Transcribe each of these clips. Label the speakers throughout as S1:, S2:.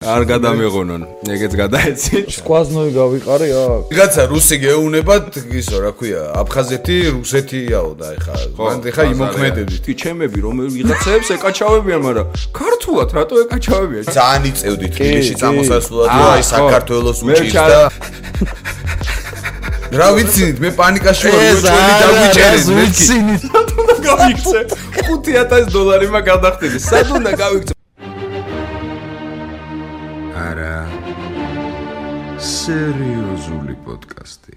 S1: არ გადამეღონონ, ეგეც გადაეცით.
S2: სკვაზნოი გავიყარე აქ.
S3: ვიღაცა რუსი გეუნებათ, ისო რა ქვია, აფხაზეთი, რუსეთიაო და მან ეხა იმოქმედებით.
S1: კი ჩემები რომ ვიღაცებს ეკაჩავებიან, მაგრამ ქართულად რატო ეკაჩავებიან?
S3: ძალიან იწევდით თბილისში წამოსასვლელად, აი საქართველოს უჭირს და რა ვიცით, მე პანიკაში ვარ, უჩვენი დაგვიჭერენ,
S2: ვიცინით.
S1: გავიქცე. $5,000 მაგ გადახდები. სად უნდა გავიქცე?
S4: არა. სერიოზული პოდკასტი.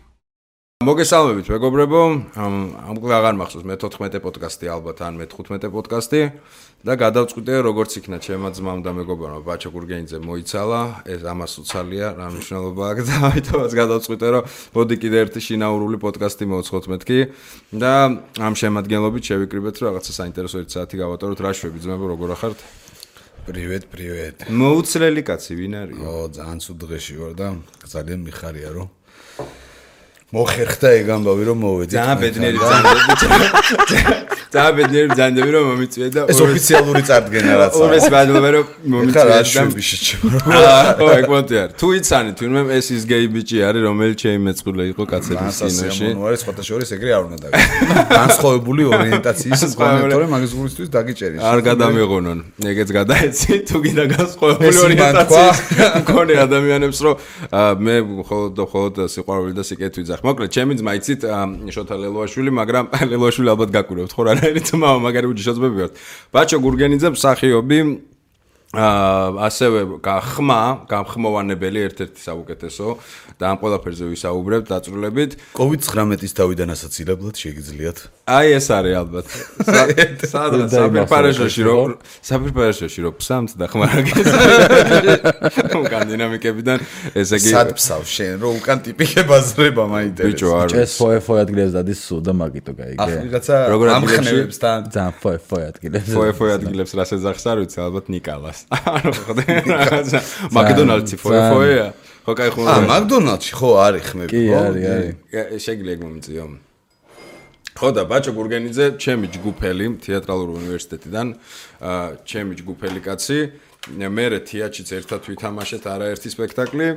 S1: მოგესალმებით, მეგობრებო. ამკლ აღარ მახსოვს მე 14 პოდკასტი ალბათ ან მე 15 პოდკასტი და გადავწყვიტე როგორც იქნა ჩემმა ძმამ და მეგობარმა ბაჩო გურგენიძე მოიცალა, ეს ამას უცალია, რა მნიშვნელობა აქვს და ამიტომაც გადავწყვიტე რომ მოდი კიდე ერთი შინაურული პოდკასტი მოვცხოთ მეთქი და ამ შემადგენლობით შევიკრიბეთ რომ რაღაცა საინტერესო 1 საათი გავატაროთ. რა შვები ძმებო, როგორ ახართ?
S3: Привет.
S1: მოუცლელი კაცი ვინ არის?
S3: ძალიან ცუდ დღეში ვარ და ძალიან მიხარია რომ მოხერხდა ეგ ამბავი რომ მოვედი.
S1: ძალიან ბედნიერი ბრძანდები რომ მომიწვია და
S3: ეს ოფიციალური წარდგენა რაც
S1: არის. ეს ბადლობა რომ მომიწვია
S3: და შვები შეჭმო.
S1: ო ეგ მოტიარ. თუ იცანით, ვინმე ეს ის გეი ბიჭი არის, რომელიც შეიმეწყულა იყო კაცების კინოში.
S3: ანუ არის სხვათა შორის ეგრე არ უნდა დაგიჭიროს. განსხვავებული ორიენტაციის კონექტორი მაგის გულისთვის დაგიჭერის.
S1: არ გადამეღონონ. ეგეც გადაეცით, თუ კიდე განსხვავებული ორიენტაციის მქონე ადამიანებს რომ მე მხოლოდ სიყვარული და სიკეთე ვიძახ. მოკლედ, ჩემი ძმა იცით შოთა ლელოაშვილი, მაგრამ ლელოაშვილი ალბათ გაკურებთ ხო რანაირი ძმა, მაგარი უჯიშოწმები ვართ. ბაჩო გურგენიძე მსახიობი, ასევე გამხმოვანებელი ერთ-ერთი საუკეთესო და ამ ყველაფერზე ვისაუბრებთ დაწვრილებით.
S3: COVID-19-ის თავიდან ასაცილებლად შეგიძლიათ.
S1: აი ეს არის ალბათ. სადღაც საფირფარეშოში რო ფსამთ და ხმარაგეს. უკან დინამიკებიდან ესე იგი
S3: სად ფსავ შენ რო უკან ტიპიკე ბაზრება მაინტერესებს.
S1: ბიჭო არის.
S2: ეს ფოე ადგილებს დადის სულ და მაგიტო გაიგე.
S3: ახ ვიღაცა ამხნევებს თან
S2: ძალიან ფოე ადგილებს.
S1: ფოე ადგილებს რას ეძახს არ ვიცი, ალბათ ნიკალას. ანუ ხოდე რაღაცა მაკდონალდსი ფოეა. ხო кай ხო.
S3: მაკდონალდსი ხო არის ხმები.
S2: კი არის.
S1: შეგიძლია ეგ მომიწიო. ხო და ბაჩო გურგენიძე, ჩემი ჯგუფელი თეატრალური უნივერსიტეტიდან, ჩემი ჯგუფელი კაცი, მერე თეატრშიც ერთად ვითამაშეთ არაერთი სპექტაკლი,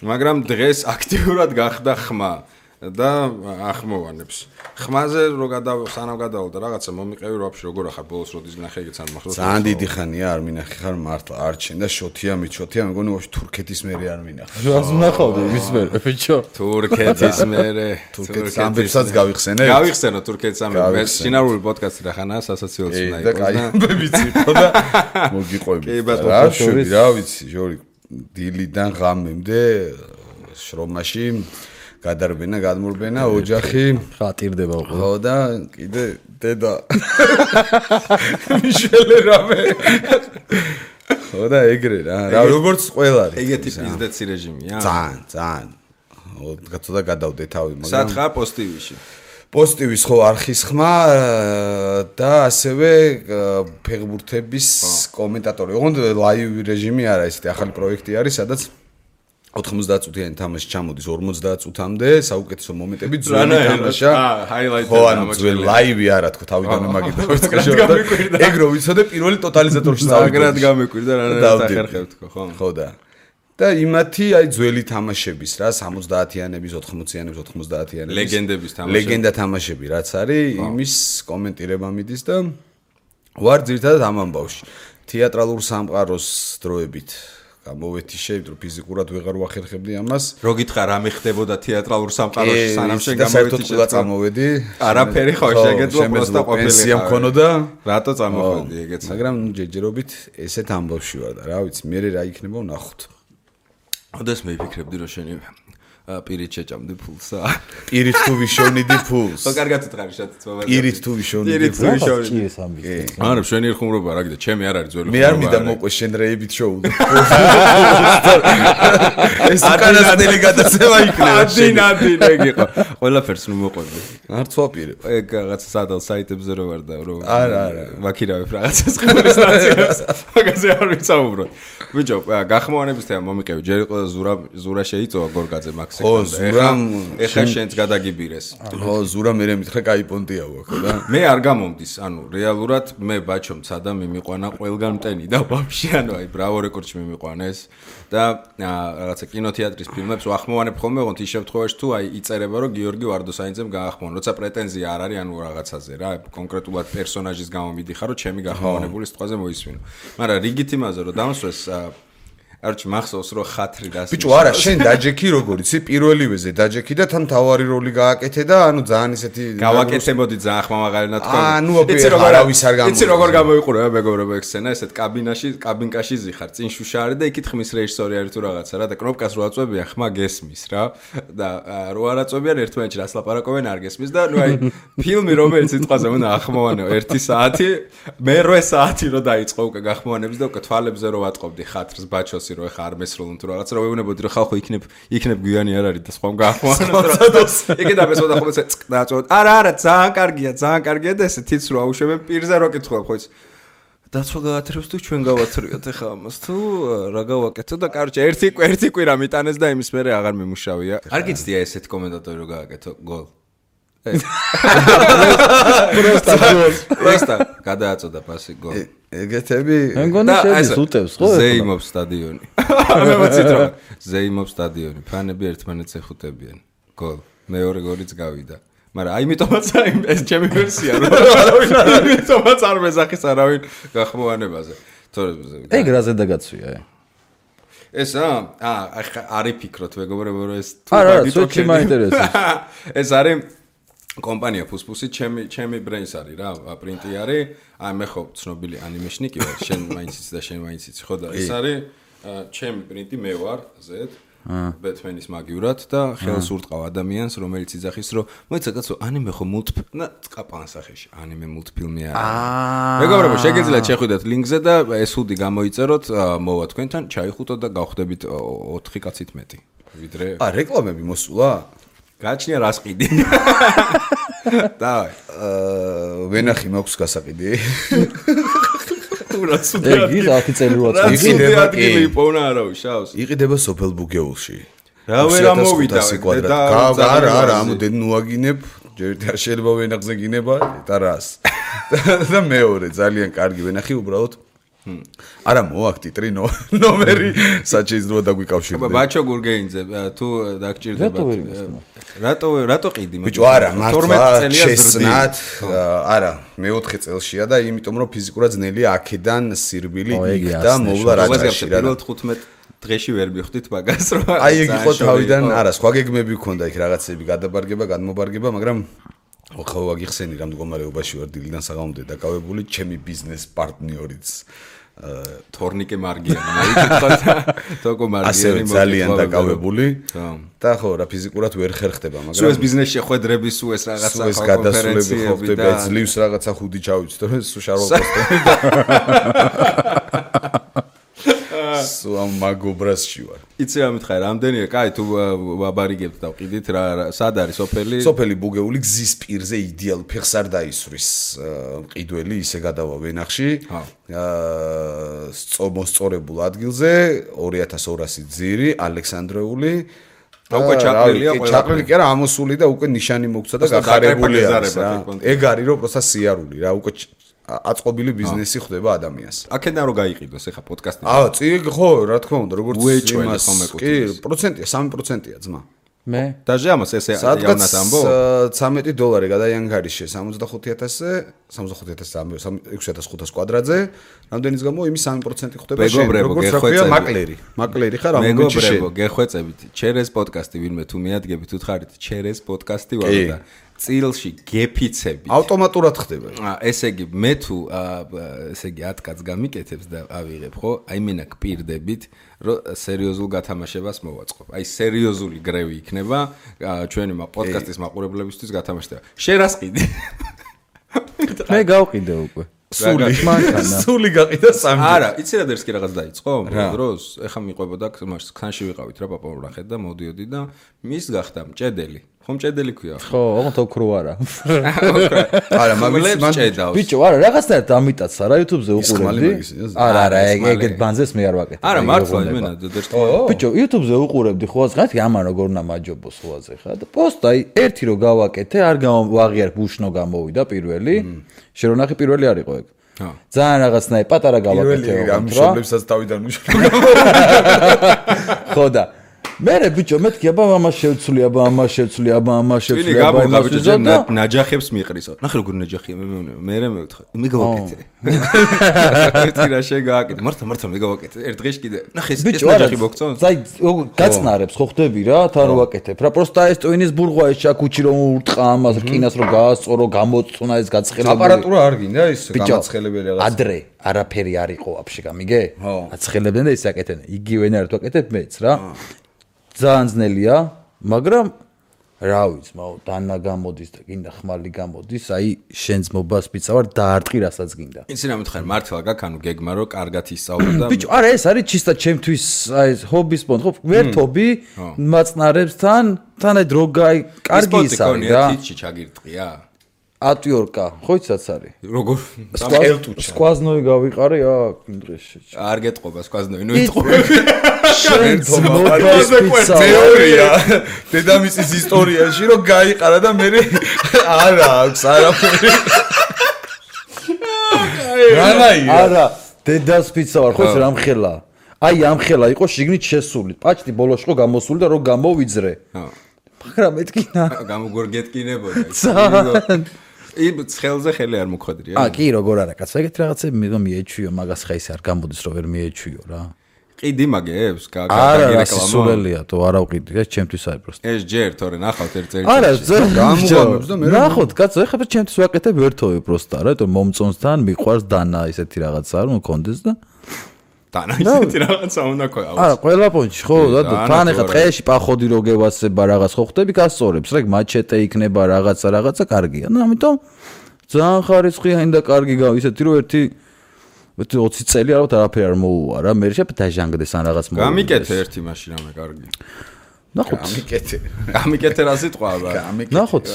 S1: მაგრამ დღეს აქტიურად გახდა ხმა და ახმოვანებს. ხმაზე რო სანამ გადავალ და რაღაცა მომიყევი რა ვაფშე როგორ ახარ ბოლოს როდის ნახე ეგეც არ მახსოვს.
S3: ძალიან დიდი ხანია არ მინახე ხარ მართლა არჩენ და შოთია მეგონი ვაფშე თურქეთის მერე არ მინახე.
S2: რას ვნახავდი იმის მერე ბიჭო?
S1: თურქეთის მერე
S3: თურქეთის ამბებსაც გავიხსენე.
S1: გავიხსენო თურქეთის ამბები. ეს შინაურული პოდკასტი რა ხანაა სასაცილოც უნდა იყოს და
S3: კაი ვიცი ხო და მოგიყვები. რა შვები რა ვიცი ჟორი დილიდან ღამემდე შრომაში გადარბენა, გადმურბენა, ოჯახი
S2: ხატირდება უკვე.
S3: ხო და კიდე დედა. მიშელე რამე. ხო და ეგრე რა. რა როგორც ყველა არის.
S1: ეგეთი პიზდეცი რეჟიმია.
S3: ძალიან. ცოტა გადავდე თავი, მაგრამ
S1: სათხა პოსტივიში.
S3: პოსტივის ხო არხის ხმა და ასევე ფეხბურთების კომენტატორი. ოღონდ ლაივ რეჟიმი არა, ესეთი ახალი პროექტი არის, სადაც 90 წუთიანი თამაში ჩამოდის 50 წუთამდე, საუკეთესო მომენტები ძველი თამაშა.
S1: ჰაილაიტი
S3: ძველი ლაივი არა თქო, თავიდანვე მაგით დავიწყე. ეგ რო ვიცოდე პირველი ტოტალიზატორში
S1: წავიდე. მაგრად გამეკვირდა რანაირად ახერხებ თქო, ხო?
S3: ხო და იმათი აი ძველი თამაშების რა 70-იანების, 80-იანების, 90-იანების
S1: ლეგენდების თამაშები.
S3: ლეგენდა თამაშები რაც არის, იმის კომენტირება მიდის და ვარ ძირითადად ამ ამბავში. თეატრალურ სამყაროს დროებით გამოვეთი შეიძლება ფიზიკურად ვეღარ ვახერხებდი ამას.
S1: რო გითხრა რა მეხდებოდა თეატრალურ სამყაროში სანამ შენ გამოვედი
S3: საერთოდ წამოვედი.
S1: არაფერი ხო შეგეძლო პროსტა ყოფილი.
S3: პენსია მქონოდა.
S1: რატო წამოვედი ეგეც.
S3: მაგრამ ჯერჯერობით ესეთ ამბავში ვარ და რა ვიცი, მე რა იქნება ვნახოთ.
S1: ოდესმე მიფიქრებდი რომ შენი პირით შეჭამდი ფულსა.
S3: პირით თუ ვიშოვნიდი ფულს.
S1: ხო კარგად უთხრარი შეთც მომენტი.
S3: პირით თუ ვიშოვნიდი
S2: ფულს. კი ეს ამბი.
S1: არა, შენი ხუმრობა რა გიდა, ჩემი არ არის ძველი ხუმრობა.
S3: მე არ მინდა მოყვე შენ რეებით შოუდო. ეს უკანასკნელი გადაცემა იქნება.
S1: ადინ ეგ იყო. ყველაფერს ნუ მოყვები.
S3: არ ცვაპირე.
S1: ეგ რაღაც სადალ საიტებზე რო ვარ და რო
S3: არა.
S1: ვაქირავებ რაღაცას ხმის სტაციას. მაგაზე არ ვიცაუბროთ. ბიჭო, გახმოვანების თემა მომიყევი. ჯერ იყო ზურა შეიწოვა გორგაძე მაქს ეხა შენც გადაგიბირეს.
S3: ხო, ზურა მე მითხრა კაი პონტია ვაქო და
S1: მე არ გამომდის, ანუ რეალურად მე ბაჩო მცადა მიმიყვანა ყველგან მტენი და ვაფშე ანუ აი ბრავო რეკორდში მიმიყვანეს და რაღაცა კინოთეატრის ფილმებს ვახმოვანებ ხოლმე, ოღონდ ის შემთხვევაში თუ აი იწერება რომ გიორგი ვარდოსაინძემ გაახმოვან, როცა პრეტენზია არ არის ანუ რაღაცაზე რა, კონკრეტულად პერსონაჟის გამო მიდიხარ რომ ჩემი გახმოვანებული სიტყვაზე მოისმინო. მაგრამ რიგით იმაზე რომ დამსვეს არჩი მახსოვს რომ ხათრი და
S3: ბიჭო არა შენ დაჯექი როგორ იცი პირველივეზე დაჯექი და თან თავარი როლი გააკეთე და ანუ ძალიან ისეთი
S1: გავაკეთებოდი ძალიან ხმამაღალი თქვა
S3: ანუ არავის არ გამოიწვია
S1: იცი როგორ გამოიყურება მეგობრებო ეგ სცენა ესეთ კაბინკაში ზიხარ წინ შუშა არის და იქით ხმის რეჟისორი არის თუ რაღაცა რა და კნოპკას რო აწვევიან ხმა გესმის რა და რო არ აწვევიან ერთმანეთში რას ლაპარაკობენ არ გესმის და ნუ აი ფილმი რომელიც სიტყვაზე უნდა ახმოვანო 1 საათი მე 8 საათი რო დაიწყო უკვე გახმოვანებს და უკვე თვალებზე რო ვატყობდი ხათრს ბაჩოს რო ხარ მესროლუნ თუ რაღაცა რო ვეუბნებოდი რომ ხალხო იქნებ გვიანი არ არის და სხვამ გაახმოვანოს იქე დაბესოდა ხოლმე წკდაწოდ არა ძალიან კარგია და ესე თიც რო აუშვებენ პირზე რო კითხულობ ხო იცი დაცვა გაათრევს თუ ჩვენ გავათრიოთ ახლა ამას თუ რა გავაკეთო და კარჩე ერთი კვირა მიტანეს და იმის მერე აღარ მიმუშავია არ გიცდია ესეთი კომენტატორი რო გააკეთო გოლ პროსტა გადააწოდა პასი გოლ
S3: ეგეთები
S2: მეგონა შედის უტევს ხო
S1: ზეიმობს სტადიონი მე მოცით რომ ზეიმობს სტადიონი ფანები ერთმანეთს ეხუტებიან გოლ მეორე გოლიც გავიდა მაგრამ აიმიტომაც ეს ჩემი ვერსია რომ აიმიტომაც არ მეზახის არავინ გახმოვანებაზე თორე
S2: ეგ რაზე დაგაცვია
S1: ესა არის ფიქრობთ მეგობრებო რომ ეს
S2: არა სულ მაინტერესებს
S1: ეს არის კომპანია ფუსფუსი ჩემი ბრენს არის რა პრინტი არის აი მე ხო ცნობილი ანიმეშნიკი ვარ შენ მაინც იცი და შენ მაინც იცი ხო და ეს არის ჩემი პრინტი მე ვარ ზედ ბეთმენის მაგივრად და ხელს ურტყავ ადამიანს რომელიც იძახის რომ მოიცა კაცო ანიმე ხო მულტფილმი წკაპან სახეში ანიმე მულტფილმი არის მეგობრებო შეგიძლიათ შეხვიდეთ ლინკზე და ეს უდი გამოიწეროთ მოვა თქვენთან ჩაიხუტოთ და გავხდებით 4 კაცით მეტი ვიდრე
S3: რეკლამები მოსულა
S1: გაჩნია რას ყიდი დავай
S3: ვენახი მაქვს გასაყიდი
S1: რა სუდი ადგილი პოვნა არავის შავს
S3: იყიდება სოფელ ბუგეულში
S1: რა ვერ ამოვიდა
S3: არა ამოდენ ნუაგინებ ჯერ შეიძლება ვენახზე გინება და რას და მეორე ძალიან კარგი ვენახი უბრალოდ არა მოაქვს ტიტრი ნომერი საჩეიზრო დაგვიკავშირდება
S1: ბაჩო გურგეინძე თუ დაგჭირდება რატო ყიდი
S3: ბიჭო არა მართლა შესნათ არა მე-4 წელშია და იმიტომ რომ ფიზიკურად ძნელია აქედან სირბილი იქ და მოვლა რაჭაში რა
S1: 15 დღეში ვერ მივხვდით მაგას რომ
S3: აი ეგ იყო თავიდან არა სხვა გეგმები გქონდა იქ რაღაცები გადაბარგება გადმობარგება მაგრამ ხო ვაგიხსენი რა მდგომარეობაში ვარ დილიდან საღამომდე დაკავებული ჩემი ბიზნეს პარტნიორიც
S1: თორნიკე მარგიანი მოიქითხოთ თოკო მარგიანი
S3: ძალიან დაკავებული და ხო რა ფიზიკურად ვერ ხერხდება მაგრამ
S1: სულ ეს ბიზნესში ხვედრები სულ ეს რაღაცა
S3: გადასვლები ხო ხდება ძლივს რაღაცა ხუდი ჩავიცით რომ სულ შარვალ პოსტები სულ ამ მაგობრასში ვარ
S1: იცი რა მითხარ რამდენია კაი თუ ვაბარიგებთ და ვყიდით რა სად არის
S3: სოფელი ბუგეული გზის პირზე იდეალ ფეხს არ დაისვრის მყიდველი ისე გადავა ვენახში მოსწორებულ ადგილზე 2200 ძირი ალექსანდრეული
S1: და უკვე
S3: ჩაყრილი კი არა ამოსული და უკვე ნიშანი მოგცა და გახარებული არის რა ეგ არის რომ პროსტა სიარული რა უკვე აწყობილი ბიზნესი ხდება ადამიანს.
S1: აქედან რო გაიყიდოს ახლა პოდკასტი.
S3: ხო, რა თქმა უნდა, როგორც იმას კი, პროცენტია, 3%-ია ძმა.
S2: მე
S1: დაჟე ამას ესე იავნად ამბო
S3: $13 გადაიანგარიშე 65000-ზე 6500 კვადრატზე რამდენის გამო იმის 3% ხდება შენ როგორც რა მაკლერი ხარ ამ მომენტში
S1: მეგობრებო გეხვეწებით ჩერეს პოდკასტი ვინმე თუ მიადგებით უთხარით ჩერეს პოდკასტი ვარ და წილში გეფიცები
S3: ავტომატურად ხდება
S1: ესე იგი მე თუ ესე იგი 10 კაც გამიკეთებს და ავიღებ ხო აი მენა გპირდებით რომ სერიოზულ გათამაშებას მოვაწყობ აი სერიოზული გრევი იქნება ჩვენი პოდკასტის მაყურებლებისთვის გათამაშება შენ რას ყიდი
S2: მე გავყიდე უკვე
S3: სული გაყიდა სამი
S1: არა იცი რა დერსკი რაღაც დაიწყო დროს ეხა მიყვებოდა ხანში ვიყავით რა პაპაურახეთ და მოდიოდი და მის გახდა მჭედელი ხომ ჭედელი ქვია.
S2: ხო, ოღონდ ოქრო არა.
S3: არა, მაგის მან
S1: ჭედავს.
S2: ბიჭო, არა, რაღაცნაირად ამიტაცა რა YouTube-ზე უყურებდი. არა, ეგეთ ბანზეს მე არ ვაკეთებ.
S1: არა, მართლა იმენა დედერტო.
S2: ბიჭო, YouTube-ზე უყურებდი ხო ასღათ, ამან როგორ უნდა მაჯობოს ხოაზე ხა და პოსტ აი ერთი რო გავაკეთე, არ ვაღიარ ბუშნო გამოვიდა პირველი. შენ რო ნახე პირველი არ იყო ეგ. ძალიან რაღაცნაირად პატარა გავაკეთე
S3: რა მშობლებსაც თავიდან მუშაობ.
S2: ხო და მერე ბიჭო მეთქი აბა ამას შევცვლი აბა ამას შევცვლი აბა ამას შევცვლი აბა
S1: იმას ბიჭო ნაჯახებს მიყრისო ნახე როგორ ნაჯახია მე მევთხარ მე გავაკეთე ერთი რა შეგააკეთე მართლა მე გავაკეთე ერთ დღეში კიდე ნახე ეს ნაჯახი მოგწონს
S2: აი გაწნარებს ხო ხდები რა თან რო ვაკეთებ რა პროსტა ეს ტვინის ბურღვა ეს ჩაკუჩი რომ ურტყა ამას რკინას რომ გაასწორო გამოწუნა ეს გაცხელებული
S3: აპარატურა არ გინდა ის გამაცხელებელი რაღაც
S2: ადრე არაფერი არ იყო ვაფშე გამიგე აცხელებდნენ და ის აკეთენ იგივენად ვაკეთებ მეც რა ძალიან ძნელია, მაგრამ რა ვიცი, დანა გამოდის და გინდა ხმალი გამოდის, აი შენ ძმობას მიცავარ დაარტყი რასაც გინდა.
S1: იცი რა მითხარ, მართლა გაქვს ანუ გეგმა რო კარგად ისწავლო და
S2: ბიჭო, არა ეს არის ჩისტა ჩემთვის აი ეს ჰობის პონტ, ხო, ვერთობი მაწნარებსთან, თან აი დრო გაი კარგი ის არის რა.
S1: თითში ჩაგირტყია?
S2: ატვიორკა, ხო იცაც არის.
S1: როგორ?
S2: სკვაზნოი გავიყარე აქ იმ დღეში.
S1: არ გეტყობა სკვაზნოი, ნუ ეტყობა.
S2: შენ ძმობას
S3: თეორია დედამისის ისტორიაში რომ გაიყარა და მე არა აქვს არაფერი
S2: არა დედას პიცა ვარ ხო ეს რამხელა აი ამხელა იყო შიგნით შესული პაჭტი ბოლოში ხო გამოსული და რო გამოვიძრე მაგრამ მეთქინა
S1: გამოგორგეთკინებოდა იმ ცხელზე ხელი არ მოხდრია
S2: კი როგორ არა კაცო ეგეთ რაღაცები მე მიეჩვიო მაგას ხა ის არ გამოდის რომ ვერ მიეჩვიო რა
S1: ყიდი მაგებს
S2: არა სულელია თუ არა ვყიდი ეს ჩემთვის არის პროსტა
S1: ეს ჯერ თორე ნახავთ ერთ წელიწადში
S2: არა გამოგამებს და მე ნახოთ კაცო ეხლა ჩემთვის ვაკეთებ ერთოვე პროსტა რა იმიტომ მომწონსთან მიყვარს დანა ისეთი რაღაცა არ მქონდეს და
S1: დანა ისეთი რაღაცა უნდა ყო
S2: არა ყველა პონჩი ხო და თან ეხლა ტყეში პახოდი რო გევასება რაღაც ხო ხდები გასწორებს რა მაჩეტე იქნება რაღაცა კარგია და ამიტომ ძალიან ხარისხია ინდა კარგი ისეთი რომ ერთი 20 წელი ალბათ არაფერი არ მოუვა რა მე შეიძლება დაჟანგდეს ან რაღაც მოუვა
S1: გამიკეთე ერთი მაშინ რამე კარგი
S2: ნახოთ
S1: გამიკეთე რა სიტყვა აბა
S2: ნახოთ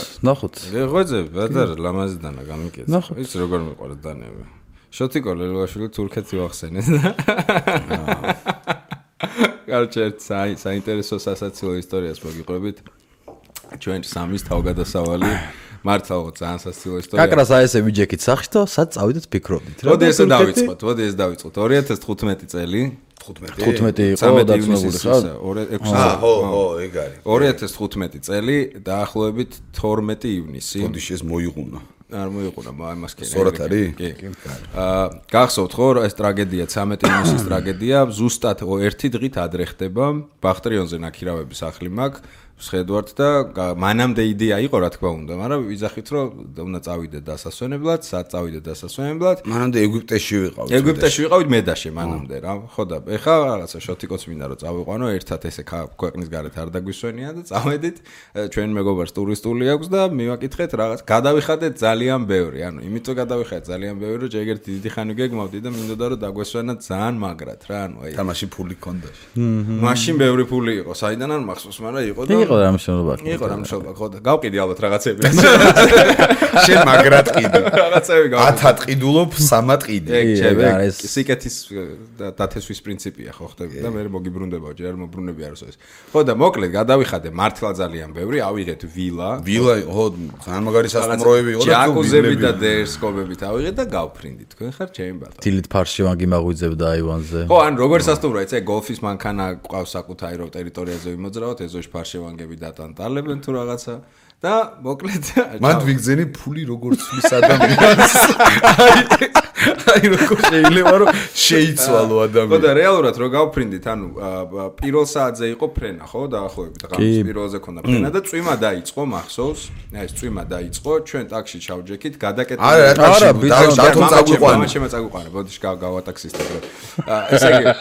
S1: რეღვეძე ბადარ ლამაზიდანა გამიკეთე ის როგორ მიყვარს დანები შოთიკო ლელოაშვილი თურქეთი ვახსენე კარჩე საინტერესო სასაცილო ისტორიას მოგიყვებით ჩვენ სამის თავგადასავალი მართლა ძალიან სასაცილო ისტორია.
S2: კაკრას აი ესე ვიჯექით სახში და სად წავიდეთ ფიქრობდით რა.
S1: მოდი ესე დავიწყოთ. 2015 წელი.
S2: 15 იყო დაწნებული ხარ?
S3: ხო, ეგ არის.
S1: 2015 წელი დაახლოებით 12 ივნისი.
S3: ბოდიში ეს მოიღუნა.
S1: არ მოიყურა იმას კი.
S3: სწორად არის?
S1: კი. გახსოვთ ხო ეს ტრაგედია 13 ივნისის ტრაგედია ზუსტად ერთი დღით ადრე ხდება ბახტრიონზე ნაქირავების სახლი მაქვს შეხედვართ და მანამდე იდეა იყო რა თქმა უნდა, მაგრამ ვიზახით რომ უნდა წავიდეთ დასასვენებლად, სად წავიდეთ დასასვენებლად.
S3: მანამდე ეგვიპტეში ვიყავით.
S1: ეგვიპტეში ვიყავით მედაში მანამდე რა. ხო და ეხა რაღაცა შოთიკოც მინდა რომ წავიყვანო, ერთად ესე ქვეყნის გარეთ არ დაგვისვენია და წავედით. ჩვენ მეგობარს ტურისტული აქვს და მივაკითხეთ რაღაც. გადავიხადეთ ძალიან ბევრი, ანუ იმიტომ გადავიხადეთ ძალიან ბევრი, რომ ჯერ დიდი ხანი გეგმავდი და მინდოდა რომ დაგვესვენა ძალიან მაგრად რა, ანუ აი.
S3: და მაშინ ფული ქონდა.
S1: მაშინ ბევრი ფული იყო, საიდან არ მახსოვს, მაგრამ იყო და
S2: იყო რამშობა
S1: ხო და გავყიდი ალბათ რაღაცები
S3: შენ მაგრად ყიდი
S1: რაღაცები გავყიდი
S3: 10-ად ყიდულობ 3-ად ყიდი
S1: ეგ სიკეთის დათესვის პრინციპია ხო ხდები და მე მოგიბრუნდებაო ჯერ არ მობრუნები არასო ეს ხო და მოკლედ გადავიხადე მართლა ძალიან ბევრი ავიღეთ ვილა
S3: ხო ძალიან მაგარი სასტუმროები იყო
S1: და ჯაკუზები და დერსკობებით ავიღეთ და გავფრინდი თქვენ ხარ ჩემი ბატონო
S2: დილით ფარშევანგი მაღვიძებდა აივანზე
S1: ხო ან როგორ სასტუმროა იცი გოლფის მანქანა ყავს საკუთარი რო ტერიტორიაზე ვიმოძრავოთ ეზოში ფარშევანგები დატანტალებენ თუ რაღაცა და მოკლედ
S3: მანდ ვიგზენი ფული როგორ ცვლის ადამიანს აი როგორ შეიძლება რომ შეიცვალო ადამიანი
S1: ხო და რეალურად რო გავფრინდით ანუ პირველ საათზე იყო ფრენა ხო დაახლოებით ღამის პირველზე ქონდა ფრენა და წვიმა დაიწყო მახსოვს აი ეს წვიმა დაიწყო ჩვენ ტაქსში ჩავჯექით გადაკეთდა
S3: არა დათომ წაგვიყვანა
S1: მამა წაგვიყვანა ბოდიში გავატაქსისტებო ესე იგი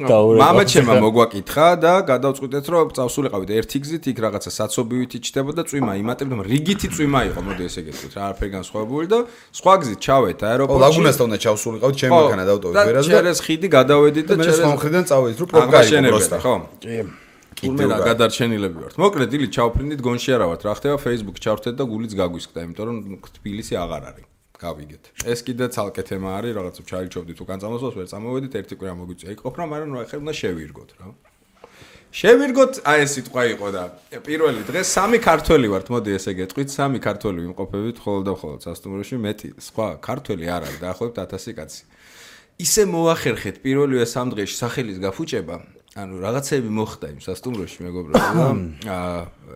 S1: მამა ჩემმა მოგვაკითხა და გადავწყვიტეთ რომ წავსულიყავით ერთი გზით იქ რაღაცა საცობივით იჭდებოდა წვიმა იმატებდა რიგითი წვიმა იყო მოდი ესე გეტყვით რა არაფერი განსხვავებული და სხვა გზით ჩავეთ აეროპორტში
S3: ლაგუნასთან უნდა ჩავსულიყავით ჩემი მანქანა დავტოვეთ
S1: ვერაზე და ჩერეს ხიდი გადავედით და
S3: ჩერეს ხიდიდან წავედით რომ პროგრამი პროსტა
S1: ხო კი თურმე რა გადარჩენილები ვართ. მოკლედ ილი ჩავფრინდით გონში არა ვართ. რა ხდება Facebook ჩავრთეთ და გულიც გაგვისკდა, იმიტომ რომ თბილისი აღარ არის. გავიგეთ. ეს კიდე ცალკე თემა არის, რაღაცა ჩაიჩობდით უკან წამოსვლას, ვერ წამოვედით, ერთი კვირა მოგვიწია იყოფრა, მაგრამ რა ხერ უნდა შევირგოთ რა. შევირგოთ, აი ეს სიტყვა იყო და პირველი დღეს 3 ქართველი ვართ, მოდი ესე გეტყვით, 3 ქართველი ვიმყოფებით მხოლოდ და მხოლოდ სასტუმროში, მეტი სხვა ქართველი არ არის, დაახლოებით 1000 კაცი. ისე მოახერხეთ პირველივე 3 დღეში სახელის გაფუჭება, ანუ რაღაცები მოხდა იმ სასტუმროში, მეგობრებო.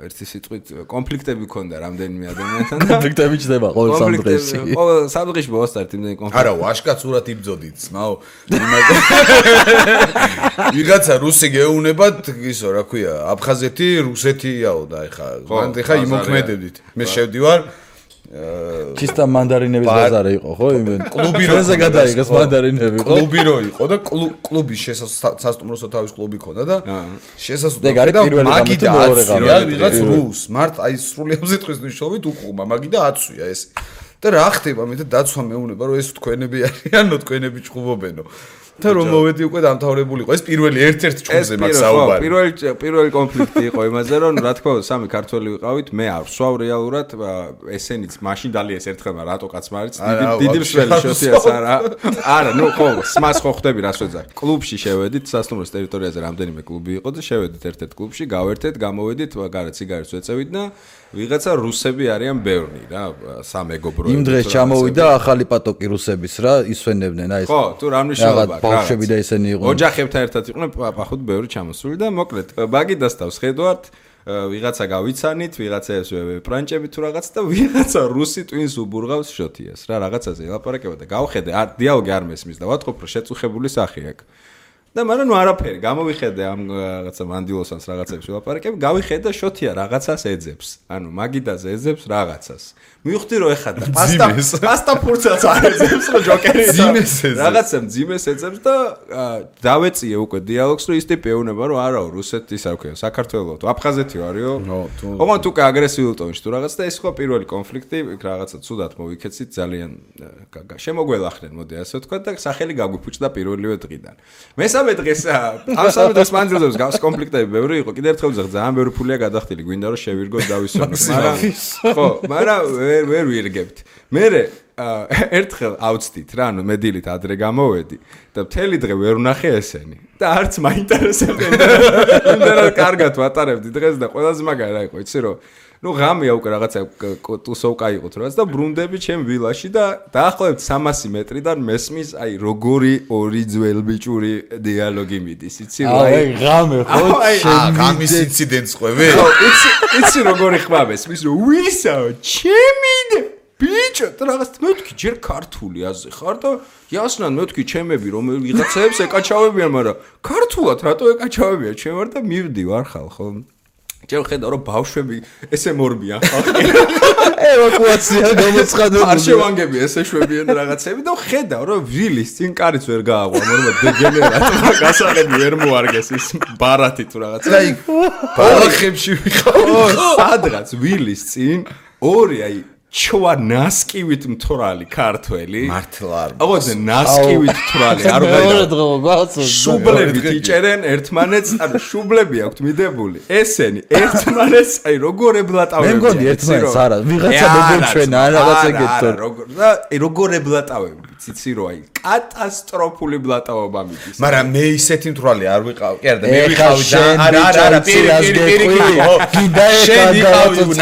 S1: ერთი სიტყვით კონფლიქტები ქონდა რამდენიმე ადამიანთან და
S2: კონფლიქტები ჩდება ყოველ 3 დღეში.
S1: ყოველ 3 დღეში მოვასწარეთ იმდენი კონფლიქტი.
S3: არა, ვაშკაცურად იბძოდით, ძმაო. ვიღაცა რუსი გეუნებათ, ისო, რა ქვია, აფხაზეთი, რუსეთიაო და ეხა იმოქმედებდით. მე შევდივარ
S2: ჩისტა მანდარინების ბაზარი იყო, ხო?
S3: კლუბი
S2: როზე გადაიღეს მანდარინები, ხო?
S3: კლუბი რო იყო და კლუბის სასტუმროსო თავის კლუბი ქონდა და შესასვლელი და მაგიდა აცვია ვიღაც რუს მართ აი სრული ამზიტყვის მნიშვნელობით უყუმა მაგიდა აცვია ეს და რა ხდება მე და დაცვა მეუნება რომ ეს თქვენები არიანო თქვენები ჭუბობენო და რომ მოვედი უკვე დამთავრებულიყო ეს პირველი ერთ-ერთი ჭუბზე მაგ საუბარი
S1: პირველი კონფლიქტი იყო იმაზე რომ რა თქმა უნდა 3 ქართველი ვიყავით მე არ ვსვავ რეალურად ესენიც მაშინ დალიეს ერთხელ რატო კაცმა არის დიდი მსველი შოთიას არა ნუ ხო სმას ხო ხდები რას ვეძახ კლუბში შევედით სასტუმროს ტერიტორიაზე რამდენიმე კლუბი იყო და შევედით ერთ-ერთ კლუბში გავერთეთ გამოვედით გარეთ სიგარეტს ვეწევით და ვიღაცა რუსები არიან ბევრი რა სამეგობრო
S2: იმ დღეს ჩამოვიდა ახალი პატოკი რუსების რა ისვენებდნენ აი ეს
S1: ხო თუ რა მნიშვნელობა აქვს
S2: ბავშვები და ესენი იყვნენ
S1: ოჯახებთან ერთად იყვნენ პახუთ ბევრი ჩამოსული და მოკლედ მაგიდასთავს ხედავთ ვიღაცა გავიცანით ვიღაცას პრანჭები თუ რაღაც და ვიღაცა რუსი ტვინს უბურღავს შოთიას რა რაღაცაზე ელაპარაკება და გავხედე დიალოგი არ მესმის და ვატყობ რომ შეწუხებული სახე აქვს და მაგრამ ნუ არაფერი გამოვიხედე ამ რაღაცა მანდილოსანს რაღაცებს ვილაპარაკებ გავიხედე შოთია რაღაცას ეძებს ანუ მაგიდაზე ეძებს რაღაცას მივხვდი რომ ეხა და პასტა ფურცელს არ ეძებს რომ ჯოკერი რაღაცა მძიმეს ეძებს და დავეწიე უკვე დიალოგს რომ ის ტიპი ეუნება რომ არაო რუსეთის არ ქვია საქართველოს თუ აფხაზეთი ვარიო ოღონდ უკვე აგრესიულ ტონში თუ რაღაც და ეს ხო პირველი კონფლიქტი რაღაცა ცუდად მოვიქეცით ძალიან შემოგველახნენ მოდი ასე ვთქვა და სახელი გაგვიფუჭდა პირველივე დღიდან მესამე დღეს ამ სამი დღეს მანძილზე გავს კონფლიქტები ბევრი იყო კიდე ერთხელ ვძახ ძალიან ბევრი ფულია გადახდილი გვინდა რომ შევირგოთ დავისვენოთ მაგრამ ხო მაგრამ ვერ ვირგებთ მე ერთხელ ავწდით რა ანუ მე დილით ადრე გამოვედი და მთელი დღე ვერ ვნახე ესენი და არც მაინტერესებდნენ იმდენად კარგად ვატარებდი დღეს და ყველაზე მაგარი რა იყო იცი რომ ну ღამეა უკვე რაღაცა ტუსოვკა იყო თუ რაღაც და ბრუნდები ჩემ ვილაში და დაახლოებით 300 მეტრიდან მესმის აი როგორი ორი ძველბიჭური დიალოგი მიდის იცი რა
S2: აი ღამე ხო
S3: ღამის ინციდენტს ყვები
S1: ხო იცი როგორი ხმა მესმის რომ ვისაო ჩემი ბიჭო და რაღაც მეთქი ჯერ ქართული აზე ხარ და იასნან მეთქი ჩემები რომ ვიღაცებს ეკაჩავებიან მაგრამ ქართულად რატო ეკაჩავებიან ჩემ ვარ და მივდი ვარ ხალ ხო ჯერ ხედავ რომ ბავშვები ესე მორბიან ხალხი
S2: ევაკუაცია გამოცხადებული
S1: არ შევანგები ესე შვებიან რაღაცები და ხედავ რომ ვილის წინ კარიც ვერ გააღვა მორმა დეგენერატმა გასაღები ვერ მოარგეს ის ბარათი თუ რაღაცა
S3: და ბალახებში ვიყავ
S1: სადღაც ვილის წინ ორი აი ჩვა ნასკივით მთვრალი ქართველი
S3: მართლა არ
S1: აღოზე ნასკივით მთვრალი არ
S2: ვღაიდა
S1: შუბლები იჭერენ ერთმანეთს ანუ შუბლები აქვთ მიდებული ესენი ერთმანეთს აი როგორ ებლატავებიან
S2: მე მგონი ერთმანეთს არა ვიღაცა მოგეჩვენა რაღაცა გეტყვი
S1: და როგორ ებლატავებიან ციცი რო აი კატასტროფული ბლატაობა მიდის
S3: მაგრამ მე ისეთი მთვრალი არ ვიყავ კი არა და მე ვიყავი და არა პირი გინდა ეხა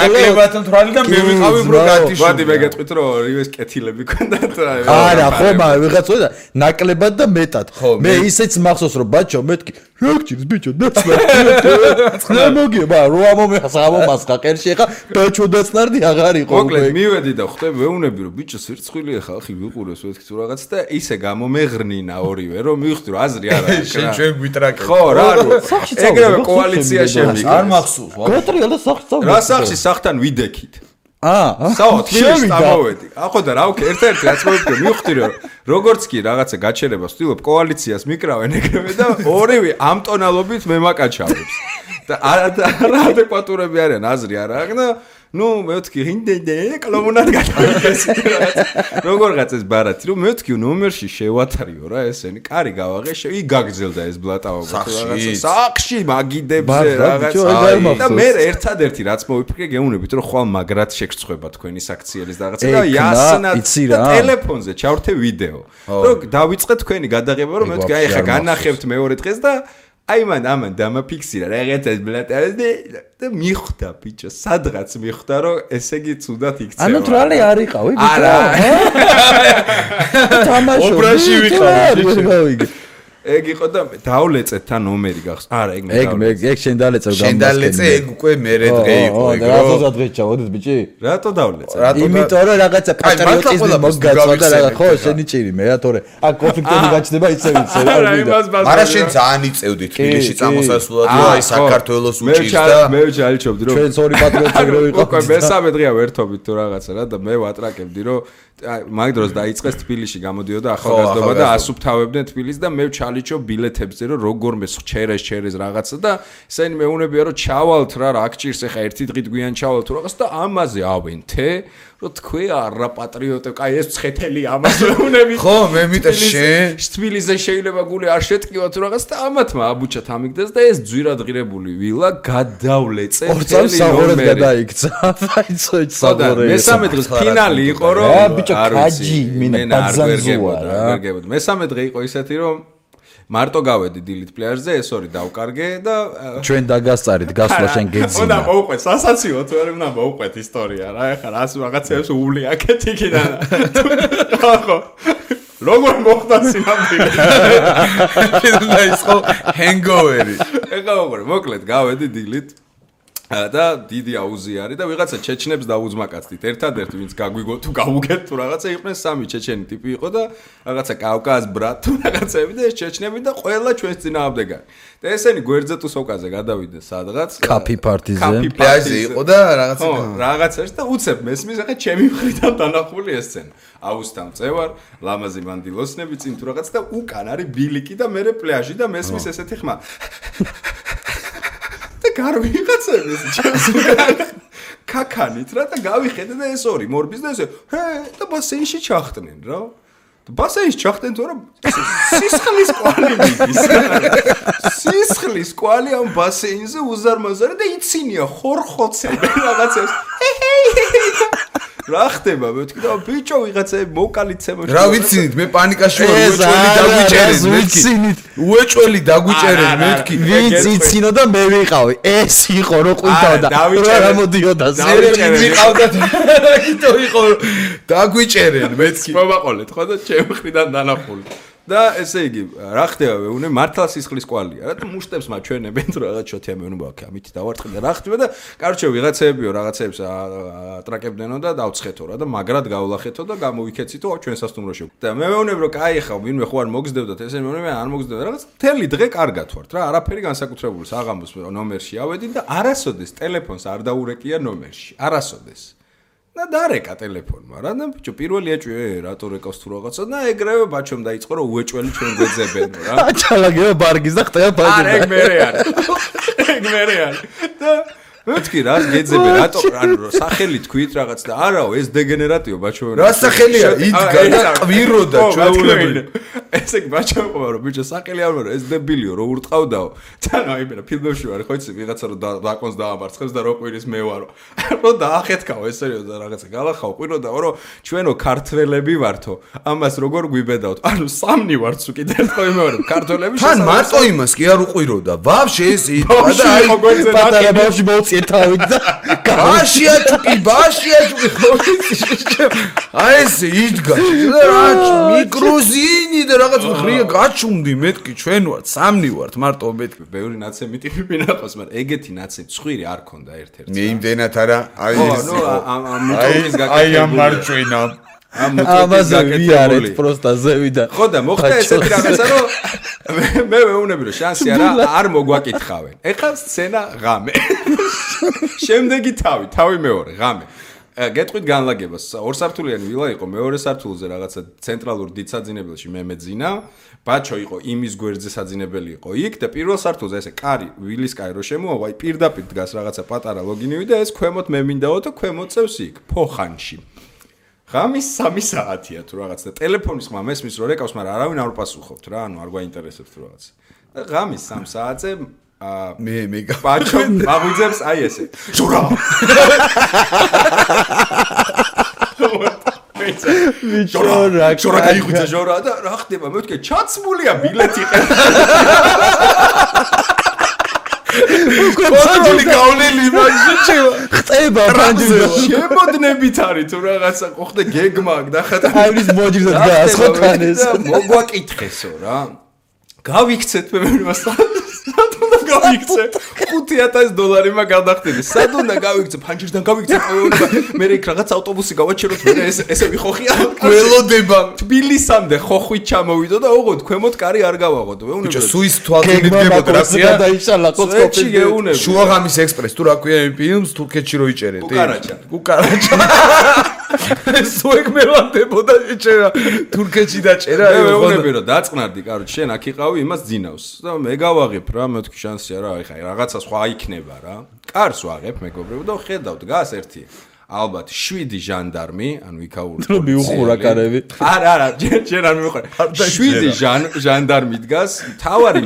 S3: ნაკლებად მთვრალი და მე ვიყავი ბროგათი
S1: ვადი მე გეტყვით რომ ორივეს კეთილები ქონდათ
S2: არა ხო მაგრამ ვიღაცა და ნაკლებად და მეტად მე ისეც მახსოვს რომ ბაჭო მეთქი რა გჭირს ბიჭო დაცლა მოგება რო ამომასხა ყერში ეხა ბაჭო დაცნარდი აღარ იყო
S1: მოკლედ მივედი და ხვდები ვეუნები რომ ბიჭო სირცხვილია ხალხი ვიყურეს ვეთქი თუ რაღაც და ისე გამომეღრნინა ორივე რომ მივხვდი რომ აზრი არ არის
S3: შენ ჩვენ გვიტრაკეთ
S1: ხო რა ეგრევე კოალიცია შემიგა
S3: არ მახსოვს
S2: გოტრიალ და სახში
S1: რა სახში სახთან ვიდექით
S2: საოთ
S1: თბილისში წამოვედი. ახო და რა ვქე ერთ-ერთი რაც მოვიქე მივხვდი რომ როგორც კი რაღაცა გაჩერებას ვთვლობ კოალიციას მიკრავენ ეგრევე და ორივე ამ ტონალობით მემაკაჩავებს. და არა ადეკვატურები არიან აზრი არ აქვს და ნუ მეთქი ინდენდე კლომუნად გადავიდეს როგორღაც ეს ბარათი რომ მეთქი ნომერში შევათრიო რა ესენი კარი გავაღე იგაგზელდა ეს ბლატაობა სახში მაგიდებზე რაღაც და მე ერთადერთი რაც მოვიფიქრე გეუნებით რომ ხვალ მაგრად შეგწყვება თქვენი საქციელის რაღაცა და იასნად ტელეფონზე ჩავრთე ვიდეო რომ დავიწყე თქვენი გადაღება რომ მეთქი აი ხა განახებთ მეორე დღეს და აი ამან დამაფიქსირა რაღაცას ბლატავდი და მიხვდა ბიჭო სადღაც მიხვდა რომ ესე იგი ცუდად იქცევა
S2: ანუ თრალი არ იყავი ბიჭო არა თამაშობ
S3: ობრაში ვიყავი
S1: ეგ იყო და დავლეწეთ თან ნომერი გახს არა
S2: ეგ შენ დალეწე
S3: შენ დალეწე ეგ უკვე მერე დღე იყო ეგ
S2: რატო დღე ჩავოდეთ ბიჭი
S1: რატო დავლეწე
S2: იმიტომ რომ რაღაცა პატრიოტიზმი მოგგაცოდა რა ხო შენი ჭირი მე რა თორე აქ კონფლიქტები გაჩნდება ისე ვიცი
S3: არა შენ ძალიან იწევდი თბილისში წამოსასვლელად რომ აი საქართველოს უჭირს და
S1: მე ჩალიჩობდი რომ
S2: ჩვენც ორი პატრიოტები რო ვიყავ
S1: უკვე მესამე დღეა ვერთობით თუ რაღაცა რა და მე ვატრაკებდი რომ მაგ დროს დაიწყეს თბილისში გამოდიოდა ახალგაზრდობა და ასუფთავებდნენ თბილისს და მე ჩალიჩო ბილეთებზე რომ როგორმე ჩერეს რაღაცა და ესენი მეუნებია რომ ჩავალთ რა აქ ჭირს ახლა ერთი დღით გვიან ჩავალთ რაღაც და ამაზე ავენთე რომ თქვი არა პატრიოტე კაი ეს ცხეთელი ამას მეუნები
S3: ხო მე მიტა შენ
S1: თბილისზე შეიძლება გული არ შეტკივათ რაღაც და ამათმა აბუჩათ ამიგდეს და ეს ძვირადღირებული ვილა გადავლეწე
S2: ორწამს საღორად გადაიქცა აიცო საღორე
S1: მესამე დღეს ფინალი იყო რომ
S2: კაჯი მინა ბაძანზუა რა
S1: ვერგებოდ მესამე დღე იყო ისეთი რომ მარტო გავედი დილით პლაჟზე ეს ორი დავკარგე და
S2: ჩვენ დაგასწარით გასვლა შენ გეძინა
S1: უნდა მოვყვეთ სასაციო თუ არა უნდა მოვყვეთ ისტორია რა ეხლა რას რაღაცებს ული აქეთ იქიდან ხო როგორ მოხდა სინამდვილე
S3: და ის ხო ჰენგოვერი
S1: ეხლა მოკლედ გავედი დილით და დიდი აუზი არის და ვიღაცა ჩეჩნებს დაუძმაკაცდით ერთადერთი ვინც გაგვიგო თუ გავუგეთ თუ რაღაცა იყვნენ სამი ჩეჩენი ტიპი იყო და რაღაცა კავკაზ ბრატ თუ რაღაცები და ეს ჩეჩნები და ყველა ჩვენს წინააღმდეგარი და ესენი გვერდზე თუ სოკაზე გადავიდნენ სადღაც
S2: კაფი პარტიზე
S3: პლაჟზე იყო და რაღაცა
S1: რაღაცაში და უცებ მესმის ახლა ჩემი მხრიდან დანახული ეს სცენა აუსთან წევარ ლამაზი მანდილოსნები წინ თუ რაღაც და უკან არის ბილიკი და მე პლაჟი და მესმის ესეთი ხმა გარ ვიღაცებს ჩემს კაკანით რა და გავიხედე და ეს ორი მორბის და ესე და ბასეინში ჩახტნენ რა ბასეინში ჩახტენ თორემ სისხლის კვალი მიდის სისხლის კვალი ამ ბასეინზე უზარმაზარი და იცინია ხორხოცები რაღაცებს რა ხდება მე ვთქვი და ბიჭო ვიღაცები მოკალიცემო
S3: რა ვიცინით მე პანიკაში ვარ უეჭველი დაგვიჭერენ მე ვთქვი
S2: ვინც იცინო და მე ვიყავი ეს იყო რო ყვინთავდა რა მოდიოდა
S3: ზერები ვიყავდა აკითო იყო დაგვიჭერენ მე ვთქვი
S1: მოვაყოლეთ ხო და ჩემ მხრიდან დანახული და ესე იგი რა ხდება ვეუნე მართლა სისხლის კვალია რა და მუშტებს მაჩვენებენ თუ რაღაც შოთია მე უნდა ამით დავარცხე და რა ხდება და კარჩე ვიღაცებიო რაღაცებს ატრაკებდნენო და დავცხეთო რა და მაგრად გავლახეთო და გამოვიქეცითო ჩვენ სასტუმროში და მე ვეუნებ რომ კაი ხა ვინმე ხო არ მოგზდევდათ ესე მე არ მოგზდევდა რაღაც მთელი დღე კარგად ვართ რა არაფერი განსაკუთრებული საღამოს ნომერში ავედი და არასოდეს ტელეფონს არ დაურეკია ნომერში არასოდეს და დარეკა ტელეფონმა რა და ბიჭო პირველი ეჭვი რატო რეკავს თუ რაღაცა და ეგრევე ბაჩომ დაიწყო რომ უეჭველი ჩვენ გვეძებენ რა
S2: აჩალაგება ბარგის და ხტება ბაჯი
S1: არა ეგ მერე არის და მეთქი რა გეძებენ რატო ანუ სახელი თქვით რაღაც და არაო ეს დეგენერატიო ბაჩო
S3: რა სახელია იდგა და ყვიროდა ჩვეულებული
S1: ესე ბაჩო ყო რომ ბიჭო სახელი არ ვარო ეს დებილიო რო ურტყავდაო თან აი მე ფილმებში ვარ ხო იცი ვიღაცა რომ დაკონს დაამარცხებს და რო ყვირის მე ვარო რო დაახეთქაო ესე და რაღაცა გალახაო ყვიროდაო რომ ჩვენო ქართველები ვართო ამას როგორ გვიბედავთ ანუ სამნი ვართ სულ კიდე ერთხელ მე ვარ ქართველები
S3: თან მარტო იმას კი არ უყვიროდა ვაფშე ეს იდგა და აი
S2: პატარა ბავშვი მოწიეთავით და
S3: ბაშიაჭუკი აი ეს იდგა რა მიკროზინი და რაღაც ხრია გაჩუმდი მეთქი ჩვენ ვართ სამნი ვართ მარტო მეთქი
S1: ბევრი ნაცემი ტიპი მინახავს მაგრამ ეგეთი ნაცემი ცხვირი არ ქონდა ერთ-ერთი
S3: მე იმდენად არა აი ეს
S1: აი
S3: ამ მარჩვენა
S2: ამაზე ვიარეთ პროსტა ზევიდან
S1: ხო და მოხდა ესეთი რაღაცა რომ მე მეუნები რომ შანსი არ მოგვაკითხავენ ეხლა სცენა ღამე შემდეგი თავი მეორე ღამე გეტყვით განლაგებას. ორსართულიანი ვილა იყო, მეორე სართულზე რაღაცა ცენტრალურ დიდ საძინებელში მე მეძინა. ბაჩო იყო იმის გვერდზე საძინებელი იყო იქ და პირველ სართულზე ესე კარი, ვილის კარი რო შემოავა, პირდაპირ დგას რაღაცა პატარა ლოგინივი და ეს ქვემოთ მე მინდაო და ქვემოთ წევს იქ, ფოხანში. ღამის 3 საათია თუ რაღაც და ტელეფონის ხმა მესმის რომ რეკავს, მაგრამ არავინ არ უპასუხობთ რა, ანუ არ გვაინტერესებს თუ რაღაც. და ღამის 3 საათზე
S3: მე
S1: ბაჩო მაგვიძებს აი ესე. შურა. შორა გაიღვიძა შორა და რა ხდება მე ვთქე ჩაცმულია ბილეთი კონტროლი გავლილი მაგში
S2: ხტება ფანჯრზე
S1: შემოდნებით არის თუ რაღაცა ხო ხდა გეგმა და ხათა
S2: აივრის მოჯირზე დგას ხო თან ეს
S1: მოგვაკითხესო რა გავიქცეთ მე უნდა გავიქცე $5,000 მაგ გადახდები სად უნდა გავიქცე ფანჯრიდან გავიქცე მე იქ რაღაც ავტობუსი გავაჩეროთ მე ესე ვიხოხია
S3: გველოდება
S1: თბილისამდე ხოხვით ჩამოვიდო და ოღონდ ქვემოთ კარი არ გავაღოთ ვეუნებო
S3: ბიჭო სუის თვალწინ მიდგებოდა რა სია
S2: დაიშალა
S1: ხოცხოპი გეუნები
S3: შუაღამის ექსპრეს თუ რა ქვია იმ ფილმს თურქეთში რო იჭერეთ კუკარაჩა სუ ეგ მელანდებოდა იჭერა თურქეთში დაჭერა
S1: ვეუნები რომ დაწყნარდი კაროჩ შენ აქ იყავი იმას ძინავს და მე გავაღებ რა მე თქვი შანსია რა ეხა რაღაცა სხვა იქნება რა კარს ვაღებ მეგობრებო და ხედავ დგას ერთი ალბათ 7 ჟანდარმი ანუ იქაური
S2: რომ მიუხურა კარები
S1: არა ჯერ არ მიუხურა 7 ჟანდარმი დგას თავარი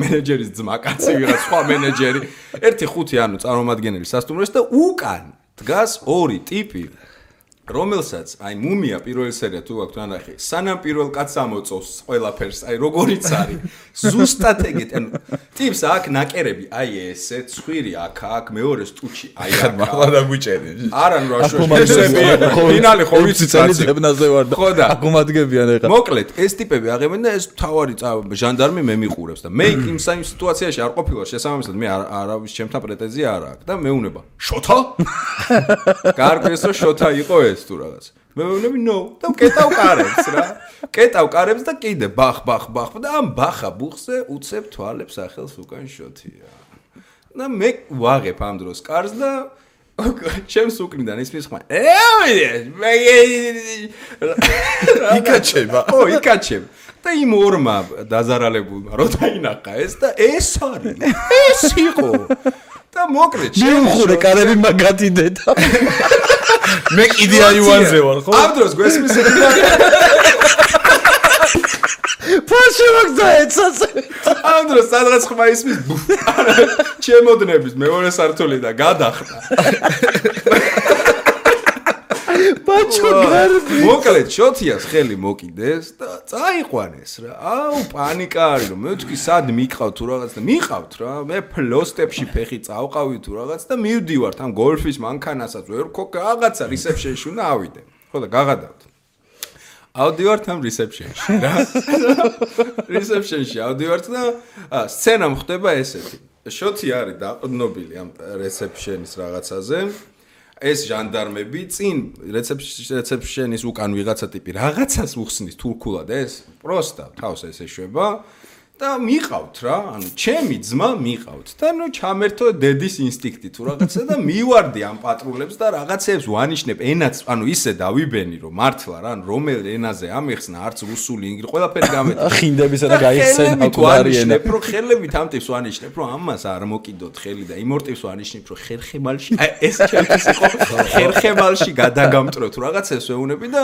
S1: მენეჯერის ძმა კაცი ვიღაც სხვა მენეჯერი 1-5 ანუ წარმომადგენელი სასტუმროს და უკან დგას 2 ტიპი რომელსაც აი მუმია პირველი სერია თუ აქვს ანახი სანამ პირველ კაცს ამოწოვს ყველაფერს აი როგორიც არის ზუსტად ეგეთ ანუ ტიპს აქ ნაკერები აი ესე ცხვირი აქ მეორე სტუჩი აი აქ
S3: მაღლა დაგვიჭერე
S1: არა ნუ რაშოშები ფინალი ხო ვიცი
S2: წელიწებნაზე ვარ და აკუმადგებიან ეხლა
S1: მოკლედ ეს ტიპები აღებენ და ეს თავარი ჟანდარმი მე მიყურებს და მე იმ სიტუაციაში არ ყოფილა შესაბამისად მე არავის ჩემთან პრეტენზია არ აქვს და მეუნება შოთა კარგეს რომ შოთა იყო ეს თუ რაღაც მე ვეუბნები ნო და კეტავ კარებს და კიდე ბახ და ამ ბახა ბუხზე უცებ თვალებს ახელს უკან შოთია და მე ვაღებ ამ დროს კარს და ჩემს უკნიდან ისმის ხმა
S3: იკაჩება
S1: და იმ ორმა დაზარალებულმა რო დაინახა ეს და ეს არის ეს იყო და მოკლედ
S2: მიუხურე კარები მაგათი დედა
S3: მე კიდე აივანზე ვარ ხო
S1: ამ დროს გვესმის
S2: ფაში მაგზაეცას
S1: ამ დროს სადღაც ხმა ისმის ჩემოდნების მეორე სართული და გადახდა
S2: ბაჩო გარბი
S1: მოკლედ შოთიას ხელი მოკიდეს და წაიყვანეს რა აუ პანიკა არის რომ მე ვთქვი სად მიყავ თუ რაღაც და მიყავთ რა მე ფლოსტებში ფეხი წავყავი თუ რაღაც და მივდივართ ამ გოლფის მანქანასაც ვერ ხო რაღაცა რისეფშენში უნდა ავიდე ხო და გაღადავთ ავდივართ ამ რისეფშენში რა რისეფშენში ავდივართ და სცენა ხდება ესეთი შოთი არის დაყრდნობილი ამ რისეფშენის რაღაცაზე ეს ჟანდარმები წინ რეცეფშენის უკან ვიღაცა ტიპი რაღაცას უხსნის თურქულად ეს პროსტა თავს ეს ეშვება და მიყავთ რა ანუ ჩემი ძმა მიყავთ და ნუ ჩამერთო დედის ინსტინქტი თუ რაღაცა და მივარდი ამ პატრულებს და რაღაცებს ვანიშნებ ენაც ანუ ისე დავიბენი რომ მართლა რა რომელ ენაზე ამეხსნა არც რუსული ინგლისური ყველაფერი გამედი
S2: ხინდებისა და გაიხსენა აკუარი ენა
S1: რო ხელებით ამ ტიპს ვანიშნებ რომ ამას არ მოკიდოთ ხელი და იმ ორ ტიპს ვანიშნებ რომ ხერხემალში აი ეს ჩემთვის იყო ხერხემალში გადაგამტრო თუ რაღაცას ვეუნები და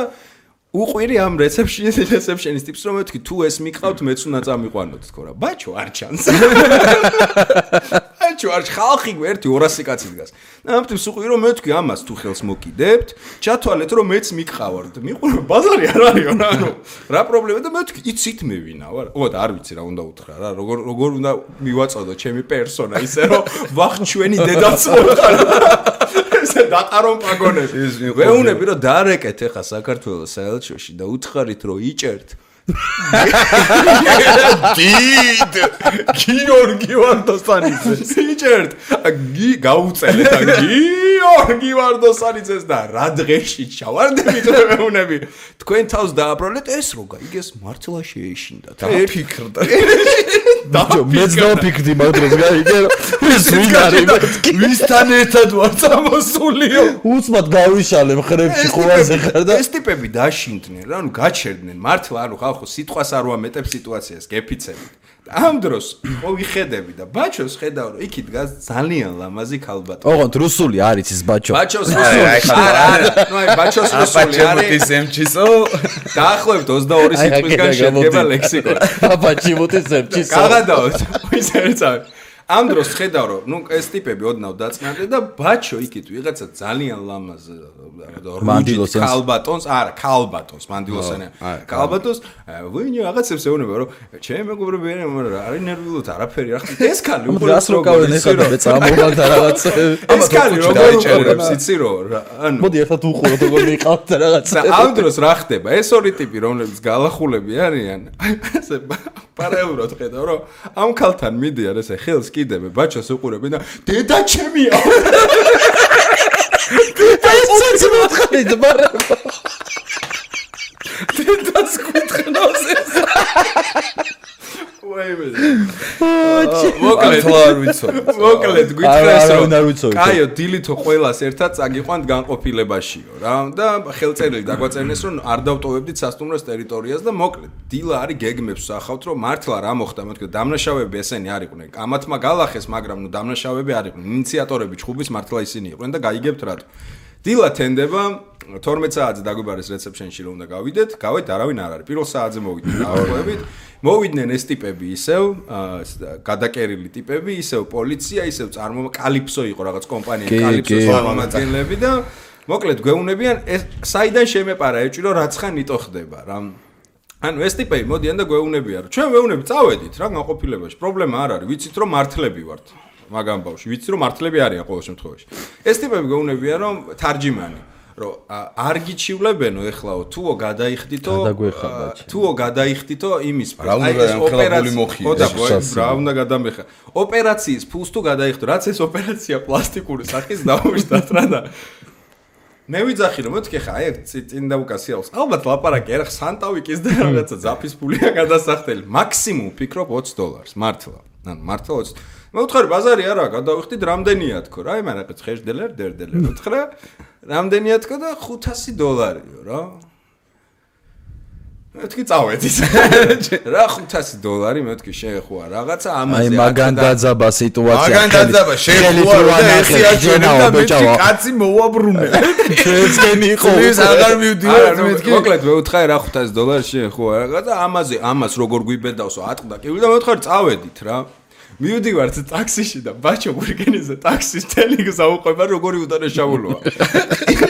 S1: უყვირი ამ რეცეფშენის ტიპს რომ მეთქი თუ ეს მიყავთ მეც უნდა წამიყვანოთ თქო რა ბაჩო არ ჩანს ბაჩო არ ხალხი ერთი 200 კაცი დგას და ამ ტიპს უყვირი რომ მეთქი ამას თუ ხელს მოკიდებთ ჩათვალეთ რომ მეც მიყავართ მიყურე ბაზარი არ არისო ანუ რა პრობლემა და მეთქი იცით მე ვინა ვარ ოდა არ ვიცი რა უნდა უთხრა რა როგორ უნდა მივაწოდო ჩემი პერსონა ისე რომ ვახ ჩვენი დედაც მოხარ ესე დატარონ პაგონები ვეუნები რომ დაარეკეთ ახლა საქართველოს საელჩოში და უთხარით რომ იჭერთ დიდ გიორგი ვარდოსტანიძე იჭერთ გაუწელეთ გიორგი გიორგი ვარდოსანიძეს და რა დღეში ჩავარდებით მეუნები თქვენ თავს დააბრალეთ ეს რო გაიგეს მართლა შეეშინდა
S3: დაფიქრდა
S2: მეც დავფიქრდი მაგ დროს გაიგე ეს ვინ არის
S3: ვისთან ერთად ვარ წამოსულიო
S2: უცბად გავიშალე მხრებში ხოვაზე ხარ და
S1: ეს ტიპები დაშინდნენ რა ანუ გაჩერდნენ მართლა ანუ ხალხო სიტყვას არ ვამეტებ სიტუაციას გეფიცებით ამ დროს ხო ვიხედები და ბაჩოს ხედავ რომ იქით დგას ძალიან ლამაზი ქალბატონი
S2: ოღონდ რუსული არის ის ბაჩო
S1: ბაჩოს რუსული არა ნუ აი ბაჩოს რუსული არის
S3: ემჩისო
S1: დაახლოებით 22 სიტყვისგან შედგება ლექსიკონი
S2: ბაჩი მოტის ემჩისო
S1: გაგადავთ ის ერთად ამ დროს ხედავ რომ ნუ ეს ტიპები ოდნავ დაწნადნენ და ბაჩო იქით ვიღაცა ძალიან ლამაზ
S2: მანდილოსანს
S1: ქალბატონს არა ქალბატონს მანდილოსანი ქალბატონს ვინი რაღაცებს ეუბნება რომ ჩემ მეგობრები არის ნერვიულოთ არაფერი რა ხარ ეს ქალი
S2: უბრალოდ რო გავენ ეხლა და წამოვარ და რაღაც
S1: ეს ქალი როგორ უყურებს იცი რომ ანუ
S2: მოდი ერთად უყუროთ როგორ მიყავთ და რაღაც
S1: ამ დროს რა ხდება ეს ორი ტიპი რომლებიც გალახულები არიან ესე პარალელურად ხედავ რომ ამ ქალთან მიდიან ესე ხელს კიდები ბაჩოს უყურებენ და დედა ჩემია
S2: ეს მოთხარით მაგრამ
S3: დედას გითხნავს ეს
S1: მოკლედ გითხრას რომ კაიო დილითო ყველას ერთად წაგიყვანთ განყოფილებაშიო რა და ხელწერილი დაგვაწერნეს რომ არ დავტოვებდით სასტუმროს ტერიტორიას და მოკლედ დილა არის გეგმებს სახავთ რომ მართლა რა მოხდა მეთქე დამნაშავეები ესენი არ იყვნენ კამათმა გალახეს მაგრამ ნუ დამნაშავეები არ იყვნენ ინიციატორები ჩხუბის მართლა ისინი იყვნენ და გაიგებთ რატო დილა თენდება 12 საათზე დაგვიბარეს რეცეპშენში რომ უნდა გავიდეთ გავეთ არავინ არ არის პირველ საათზე მოვიდნენ დაახლოებით მოვიდნენ ეს ტიპები ისევ გადაკერილი ტიპები ისევ პოლიცია ისევ კალიფსო იყო რაღაც კომპანია კალიფსოს წარმომადგენლები და მოკლედ გვეუბნებიან ეს საიდან შემეპარა ეჭვი რომ რაცხან იტო ხდება რა ანუ ეს ტიპები მოდიან და გვეუბნებიან რომ ჩვენ ვეუბნები წავედით რა განყოფილებაში პრობლემა არ არის ვიცით რომ მართლები ვართ მაგამ ბავშვი ვიცი რომ მართლები არიან ყოველ შემთხვევაში ეს ტიპები გეუბნებიან რომ თარჯიმანი რომ არ გიჩივლებენო ეხლაო თუო გადაიხდითო თუო გადაიხდითო იმის
S3: რა უნდა ოპერაციული მოხიდეს
S1: რა უნდა გადამეხა ოპერაციის ფულს თუ გადაიხდო რაც ეს ოპერაცია პლასტიკური სახის დაუშვათ რა და მე ვიძახი რომ მეთქე ხა აი წინ დაუკასიავს ალბათ ლაპარაკი არა სანტავიკის და რაღაცა ზაფის ფულია გადასახდელი მაქსიმუმ ფიქრობ $20 მართლა ანუ მართლა 20 მე ვთხარი ბაზარი არა გადავიხდით რამდენია თქო რა აი მანაყიც ხეშდელერ დერდელერ ვთხრა რამდენია თქო და $500-იო რა მეთქი წავედით რა $500 მეთქი შეეხოა რაღაცა ამაზე
S2: აი მაგან დაძაბა სიტუაცია
S3: მაგან დაძაბა შეეხოა და ესე აჩვენა და მეთქი კაცი მოვაბრუნე
S2: ჩვენსკენი იყო
S3: ის აღარ მივდივართ მეთქი
S1: მოკლედ მე ვთხარი რა $500 შეეხოა რაღაცა ამას როგორ გვიბედავსო ატყდა კი და მე ვთხარი წავედით რა მივდივართ ტაქსიში და ბაჩო გურგენიზე ტაქსის თელიგს აუყვება როგორი უდანაშაულოა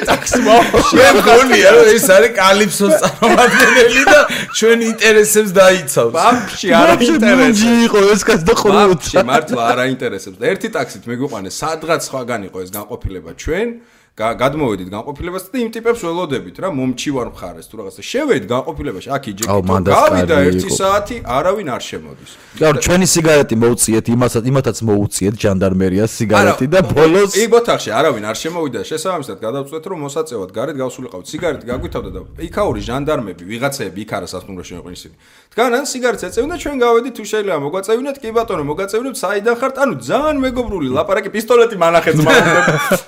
S1: ტაქსი
S3: მოგონია რომ ეს არის კალიფსოს წარმომადგენელი და ჩვენ ინტერესებს დაიცავს
S1: ბაბში არა ინტერესებს
S2: იყო ეს კაც და ხოლმე
S1: ბაბში მართლა არა ინტერესებს და ერთი ტაქსით მეგვიყვანეს სადღაც სხვაგან იყო ეს განყოფილება ჩვენ გადმოვედით განყოფილებასთან და იმ ტიპებს ველოდებით რა მომჩივარ მხარეს თუ რაღაცა შევედით განყოფილებაში აქ იჯეკით გავიდა 1 საათი არავინ არ შემოდის
S2: გარ ჩვენი სიგარეტი მოუწიეთ იმათაც მოუწიეთ ჟანდარმერიას სიგარეტი და ბოლოს
S1: იქ ბოთახში არავინ არ შემოვიდა შესაბამისად გადავწყვეტ რომ მოსაწევად გარეთ გავსულიყავთ სიგარეტი გაგვითავდა და იქაური ჟანდარმები ვიღაცები იქ არა სასტუმროში იყვნენ ისინი დგანან სიგარეტს ეწევენ და ჩვენ გავედით თუ შეიძლება მოგვაწევინოთ კი ბატონო მოგვაწევინოთ საიდან ხართ ანუ ძალიან მეგობრული ლაპარაკი პისტოლეტი მანახეთ მაგდებ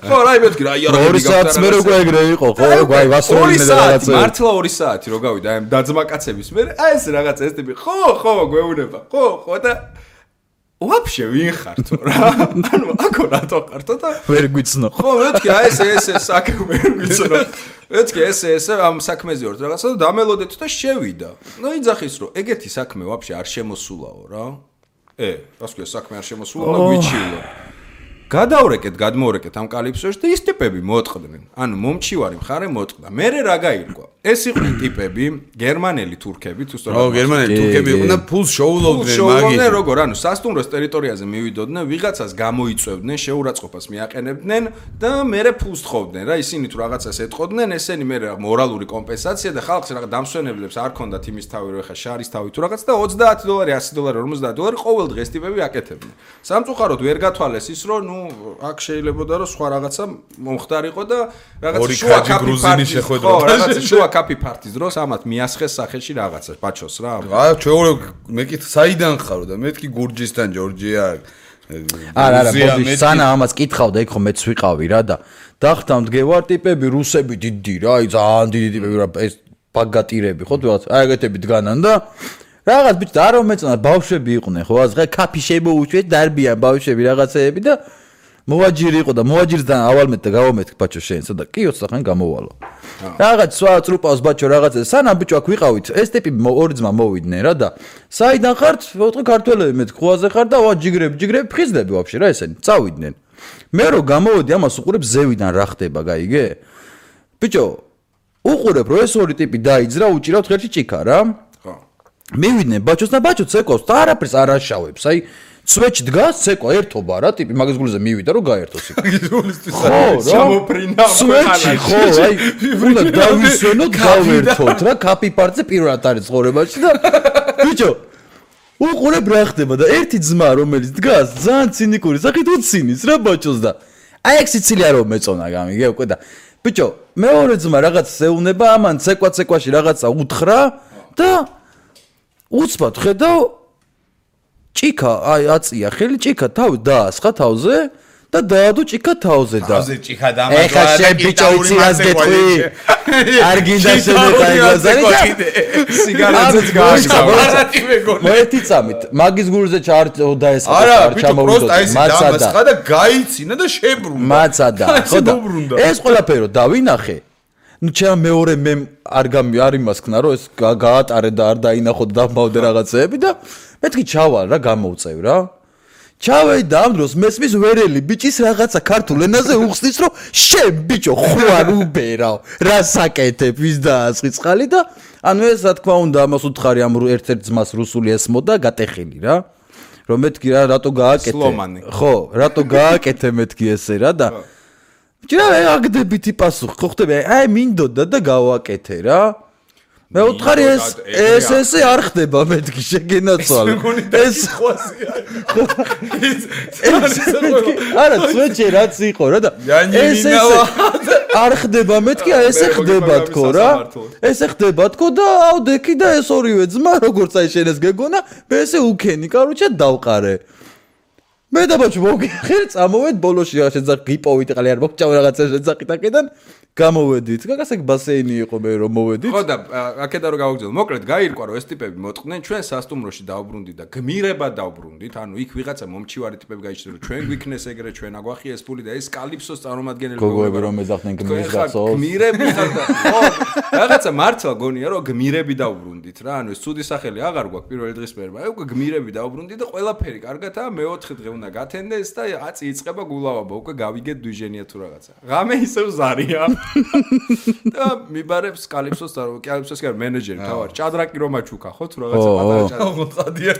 S1: ხო რა იმეთქი რა
S2: 2 საათს მე როგორ ეგრე იყო ხო აი ვასროლინე და რაღაცა
S1: მართლა 2 საათი რო გავიდა აი დაძმა კაცების მე აი ეს რაღაცა ეს ტიპი ხო გვეუბნება ხო და ვაფშე ვინ ხართო რა ანუ აქ რატო ხართო და
S2: ვერ გვიცნო
S1: ხო მეთქი აი ეს საქმე ვერ გვიცნო მეთქი ეს ამ საქმეზე ვარ რაღაცა და დამელოდეთ და შევიდა ნუ იძახის რომ ეგეთი საქმე ვაფშე არ შემოსულაო რა რას ქვია საქმე არ შემოსულა გვიჩილა გადავრეკეთ გადმოვრეკეთ ამ კალიფსოში და ის ტიპები მოტყდნენ ანუ მომჩივარი მხარე მოტყდა მე რა გაირკვა ეს იყვნენ ტიპები გერმანელი თურქები თუ სწორად
S3: გერმანელი თურქები იყვნენ და ფულს შოულობდნენ
S1: მაგით როგორ ანუ სასტუმროს ტერიტორიაზე მივიდოდნენ ვიღაცას გამოიწვევდნენ შეურაცხყოფას მიაყენებდნენ და მე ფულს თხოვდნენ რა ისინი თუ რაღაცას ეტყოდნენ ესენი მე მორალური კომპენსაცია და ხალხს რაღაც დამსვენებლებს არ ქონდათ იმის თავი რომ ეხა შარის თავი თუ რაღაც და $30 $100 $50 ყოველ დღეს ტიპები აკეთებდნენ სამწუხაროდ ვერ გათვალეს ის რომ ნუ აქ შეიძლებოდა რომ სხვა რაღაცა მომხდარიყო და რაღაცა
S3: ორი კაჯი გრუზინი შეხვედროდა.
S1: რაღაცა შუა კაფი ფარტის დროს ამათ მიასხეს სახეში რაღაცა ბაჩოს რა.
S3: ჩვენ მეკით საიდან ხარო და მეთქი გურჯისთან ჯორჯია.
S2: არა, სანა ამას კითხავდა, იქ ხომ მეც ვიყავი რა და დახტამდგევარ ტიპები რუსები დიდი რა, აი ძალიან დიდი ტიპები რა, ეს ბაგატირები ხო თუ რაღაც აი ეგეთები დგანან და რაღაც ბიჭ და არ მომეწონა ბავშვები იყვნენ ხო ასე კაფი შემოუშვეთ დარბიან ბავშვები რაღაცეები და მოვაჯირი იყო და მოვაჯირსთან ავალმეთ და გავამეთქ ბაჩო შენსა და კი 20 ხანი გამოვალო რაღაც სხვა წრუპავს ბაჩო რაღაცა სანამ ბიჭო აქ ვიყავით ეს ტიპი ორი ძმა მოვიდნენ რა და საიდან ხართ ვთქვი ქართველები მეთქ ხუაზე ხარ და ვა ჯიგრები ფხიზდები ვაფშე რა ესენი წავიდნენ მე რო გამოვედი ამას უყურებ ზევიდან რა ხდება გაიგე ბიჭო უყურებ რომ ეს ორი ტიპი დაიძრა უჭირავთ ხერში ჭიქა რა მივიდნენ ბაჩოს და ბაჩო ცეკოს და არაფერს არ აშავებს აი სვეჩ დგას ცეკვა ერთობა რა ტიპი მაგის გულზე მივიდა რომ გაერთოს იქ ხო
S1: შემოფრინა
S2: სვეჩი ხო აი უნდა დავისვენოთ გავერთოთ რა კაფი პარტზე პირველად არის ცხოვრებაში და ბიჭო უყურებ რა ხდება და ერთი ძმა რომელიც დგას ძალიან ცინიკური სახით უცინის რა ბაჩოს და აი ეგ სიცილია რომ მეწონა გამიგე უკვე და ბიჭო მეორე ძმა რაღაც ეუნება ამან ცეკვაში რაღაცა უთხრა და უცბად ხედავ ჭიქა აი აწია ხელი ჭიქა თავი დაასხა თავზე და დაადო ჭიქა თავზე და
S3: თავზე ჭიქა დამატვა
S2: ეხა შენ ბიჭო იცი რას გეტყვი არ გინდა შემეყაი გაზარი
S1: სიგარეტებს გააშკა
S2: მოეთი წამით მაგის გულზე ჩაარდა ეს
S3: არა ჩამოვიდო მაცადა და გაიცინა და შებრუნდა
S2: მაცადა ხო და ეს ყველაფერო დავინახე ну ჩემ მეორე მე არ იმასქნა რომ ეს გაატარე და არ დაინახო და დამბავდე რაღაცეები და მეთქი ჩავალ რა გამოვწევ რა ჩავედი და ამ დროს მესმის ვერელი ბიჭის რაღაცა ქართულ ენაზე უხსნის რომ შენ ბიჭო ხვარ უბერავ რა საკეთებ ვის დაასხი წყალი და ანუ ეს რა თქმა უნდა ამას უთხარი ამ ერთ-ერთ ძმას რუსული ესმოდა გატეხილი რა რომ მეთქი რა რატო გააკეთე ხო რატო გააკეთე მეთქი ესე რა და ჯერა აგდებითი პასუხი ხო ხდება აი მინდოდა და გავაკეთე რა მე უთხარი ეს არ ხდება მეთქი შეგენაცვალე ეს არა სვეჩი რაც იყო რა და ეს არ ხდება მეთქი ესე ხდება თქო რა ესე ხდება თქო და ავდექი და ეს ორივე ძმა როგორც აი შენ ეს გეგონა მე ესე უკენი კაროჩა დავყარე მე და ბაჭო მოგიხარ წამოვედ ბოლოში რა შეძახ გიპოვით ყალი არ მოგჭავ რაღაცა შეძახით აქედან გამოვედით გასაგ ბასეინი იყო მე რომ მოვედით
S1: ხო და აქედან რომ გავაგზავნო მოკლედ გაირკვა რომ ეს ტიპები მოტყდნენ ჩვენ სასტუმროში დავბრუნდით და გმირებად დავბრუნდით ანუ იქ ვიღაცა მომჩივარი ტიპები გაიჩნდა რომ ჩვენ გვიქნეს ეგრე ჩვენ აგვახიეს ფული და ეს კალიფსოს წარმომადგენელი
S2: გოგოები რომ ეძახდნენ გმირს გახსოვს
S1: გმირები ხარ და ხო რაღაცა მართლა გონია რომ გმირები დავბრუნდით რა ანუ ეს ცუდი სახელი აღარ გვაქვს პირველი დღის მერმა აი უკვე გმირები დავბრუნდით და ყველაფერი კარგათაა მეოთხე დღე უნდა გათენდეს და აწი იწყება გულავაბა უკვე გავიგეთ დვიჟენია თუ რაღაცა ღამე ისევ ზარია და მიბარებს კალიფსოს და კალიფსოს კი მენეჯერი თავარ ჭადრაკი რომ აჩუქა ხო თუ რაღაცა პატარა ჭადრაკი წადია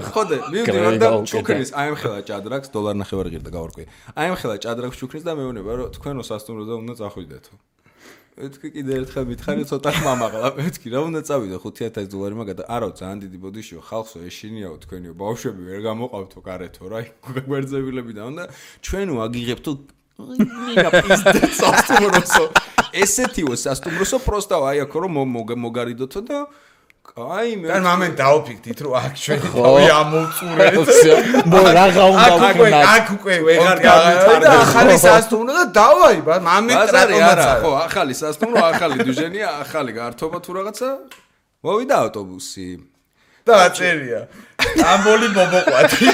S1: ხო და მივდივარ და ჩუქნის აემხელა ჭადრაკს $1.50 ღირდა გავარკვი აემხელა ჭადრაკს ჩუქნის და მეუბნება რომ თქვენო სასტუმროზე უნდა წახვიდეთო მეთქი კიდე ერთხელ მითხარი ცოტა ხმამაღლა მეთქი რა უნდა წავიდე $5,000 მაგადა არა ძალიან დიდი ბოდიშიო ხალხსო ეშინიაო თქვენიო ბავშვები ვერ გამოყავთო გარეთო რა გვერძებილები და უნდა ჩვენო აგიღებთო ნინა პიზდე სასტუმროსო ესეთიო სასტუმროსო პროსტა აი აქ რომ მოგარიდოთო და აი მე
S3: და მამენ დაუფიქდით რომ აქ ჩვენი თავი ამოვწურეთ
S2: მო რაღა უნდა ვქნა
S3: აქ უკვე ვეღარ გამითარდა ახალი სასტუმრო და დავაი ბა მამენ ტრატომაცა
S1: ხო ახალი სასტუმრო ახალი დუჟენია ახალი გართობა თუ რაღაცა მოვიდა ავტობუსი
S3: და აწერია ამბოლი ბობოყვათი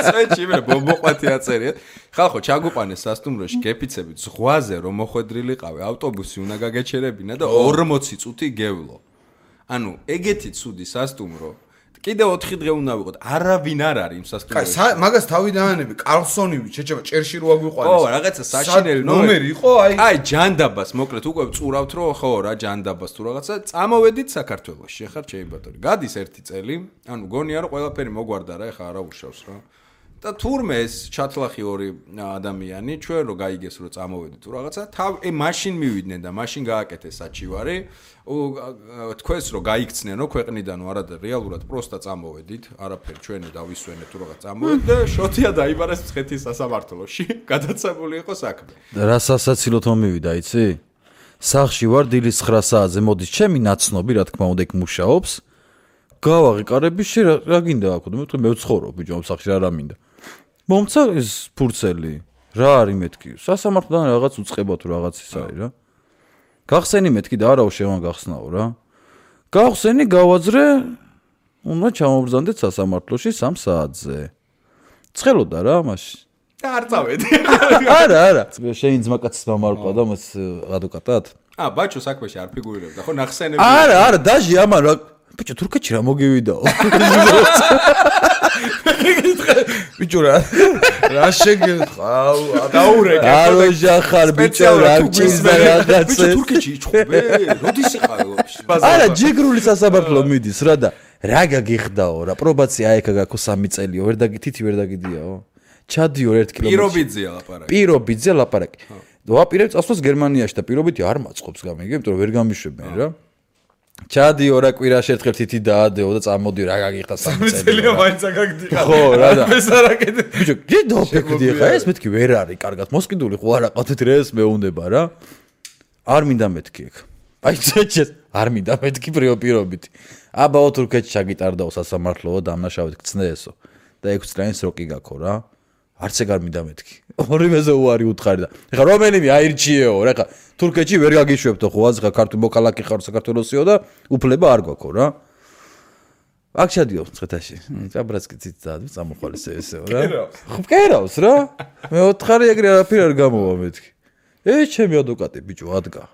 S1: წეჩი მე ბობოყვათი აწერია ხალხო ჩაგუყანეს სასტუმროში გეფიცებით ზღვაზე რომ მოხვედრილიყავე ავტობუსი უნდა გაგეჩერებინა და 40 წუთი გევლო ანუ ეგეთი ცუდი სასტუმრო კიდე 4 დღე უნდა ვიყოთ არავინ არ არის იმ სასტუმროში
S3: მაგას თავიდანები კარლსონივი შეჭება ჭერში რო აგვიყვანეს
S1: ხო რაღაცა საშინელი
S3: ნომერი იყო
S1: აი ჯანდაბას მოკლედ უკვე წურავთ რომ ხო რა ჯანდაბას თუ რაღაცა წამოვედით საქართველოში ხარ ჩემი ბატონი გადის 1 წელი ანუ გონია რომ ყველაფერი მოგვარდა რა ეხა არა უშავს რა და თურმე ეს ჩათლახი ორი ადამიანი ჩვენ რო გაიგეს რომ წამოვედი თუ რაღაცა მაშინ მივიდნენ და მაშინ გააკეთეს საჩივარი თქვენს რომ გაიქცნენ რომ ქვეყნიდან არა რეალურად პროსტა წამოვედით არაფერი ჩვენი დავისვენეთ თუ რაღაც წამოვედით და შოთია დაიბარეს მცხეთის სასამართლოში გადაცებული იყო საქმე
S2: რა სასაცილოდ მომივიდა იცი სახში ვარ დილის 9 საათზე მოდის ჩემი ნაცნობი რა თქმა უნდა იქ მუშაობს გავაღიკარები რა გინდა აქ მე მევცხოვრო ბიჭო ამ სახში რა მინდა მომცა ეს ფურცელი რა არის მეთქი სასამართლოდან რაღაც უწყება თუ რაღაც ის არის რა გახსენი მეთქი და არაო შევან გახსნაო რა გავხსენი გავაძრე უნდა ჩამოვბრძანდეთ სასამართლოში 3 საათზე ცხელოდა რა მაშინ
S1: და არ წავედი
S2: არა შენ ძმაკაცის მამარყვა და მას ადვოკატად
S1: ბაჭო საქმეში არ ფიგურირებდა ხო ნახსენები
S2: არა დაჟი ამან რა ბიჭო თურქეთში რა მოგივიდაო ბიჭო რა შეგეყავ
S1: დაურეკე
S2: აროჟახარ ბიჭო რა ჭირდა რაღაცა
S1: ბიჭო თურქეთში იჭხობე როდის იყავ
S2: არა ჯიგრული სასამართლო მიდის რა და რა გაგიხდაო რა პრობაცია აიქა გაქო 3 წელიო ვერ დაგითითი ვერ დაგიდიაო ჩადიო 1 კილომეტრი პირობიძე ლაპარაკი ვაპირებ წასვლას გერმანიაში და პირობითი არ მაწყობს გამიგე იმიტომ რომ ვერ გამიშვებენ რა ჩადიო რა კვირაში ერთხელ თითი დაადეო და წამოდიო რა გაგიხდა 3
S3: წელია მაინც აგდიხარ
S2: ხო რა და
S3: ეს არაკეთე
S2: ბიჭო გიდო ფიქრდი ხა ეს მეთქი ვერ არის კარგად მოსყიდული ხო არა ყავთ ეს მეუნდება რა არ მინდა მეთქი ეგ აი წეჩეს არ მინდა მეთქი პირობითი აბაო თურქეთში ჩაგიტარდაო სასამართლოო დამნაშავედ გწნეესო და 6 წლიანი სროკი გაქო რა არც ეგ არ მინდა მეთქი ორივეზე უარი უთხარი და ეხა რომელიმე აირჩიეო რა ეხა თურქეთში ვერ გაგიშვებთო ხო აზღა ქართული მოქალაქე ხარ საქართველოსიო და უფლება არ გვაქვს რა აქ ჩადიო მცხეთაში ჭაბრაცკიცით წამოხვალეს ესეო რა ხო მკერავს რა მე ოთხარი ეგრე არაფერი არ გამოვა მეთქი ეს ჩემი ადვოკატი ბიჭო ადგა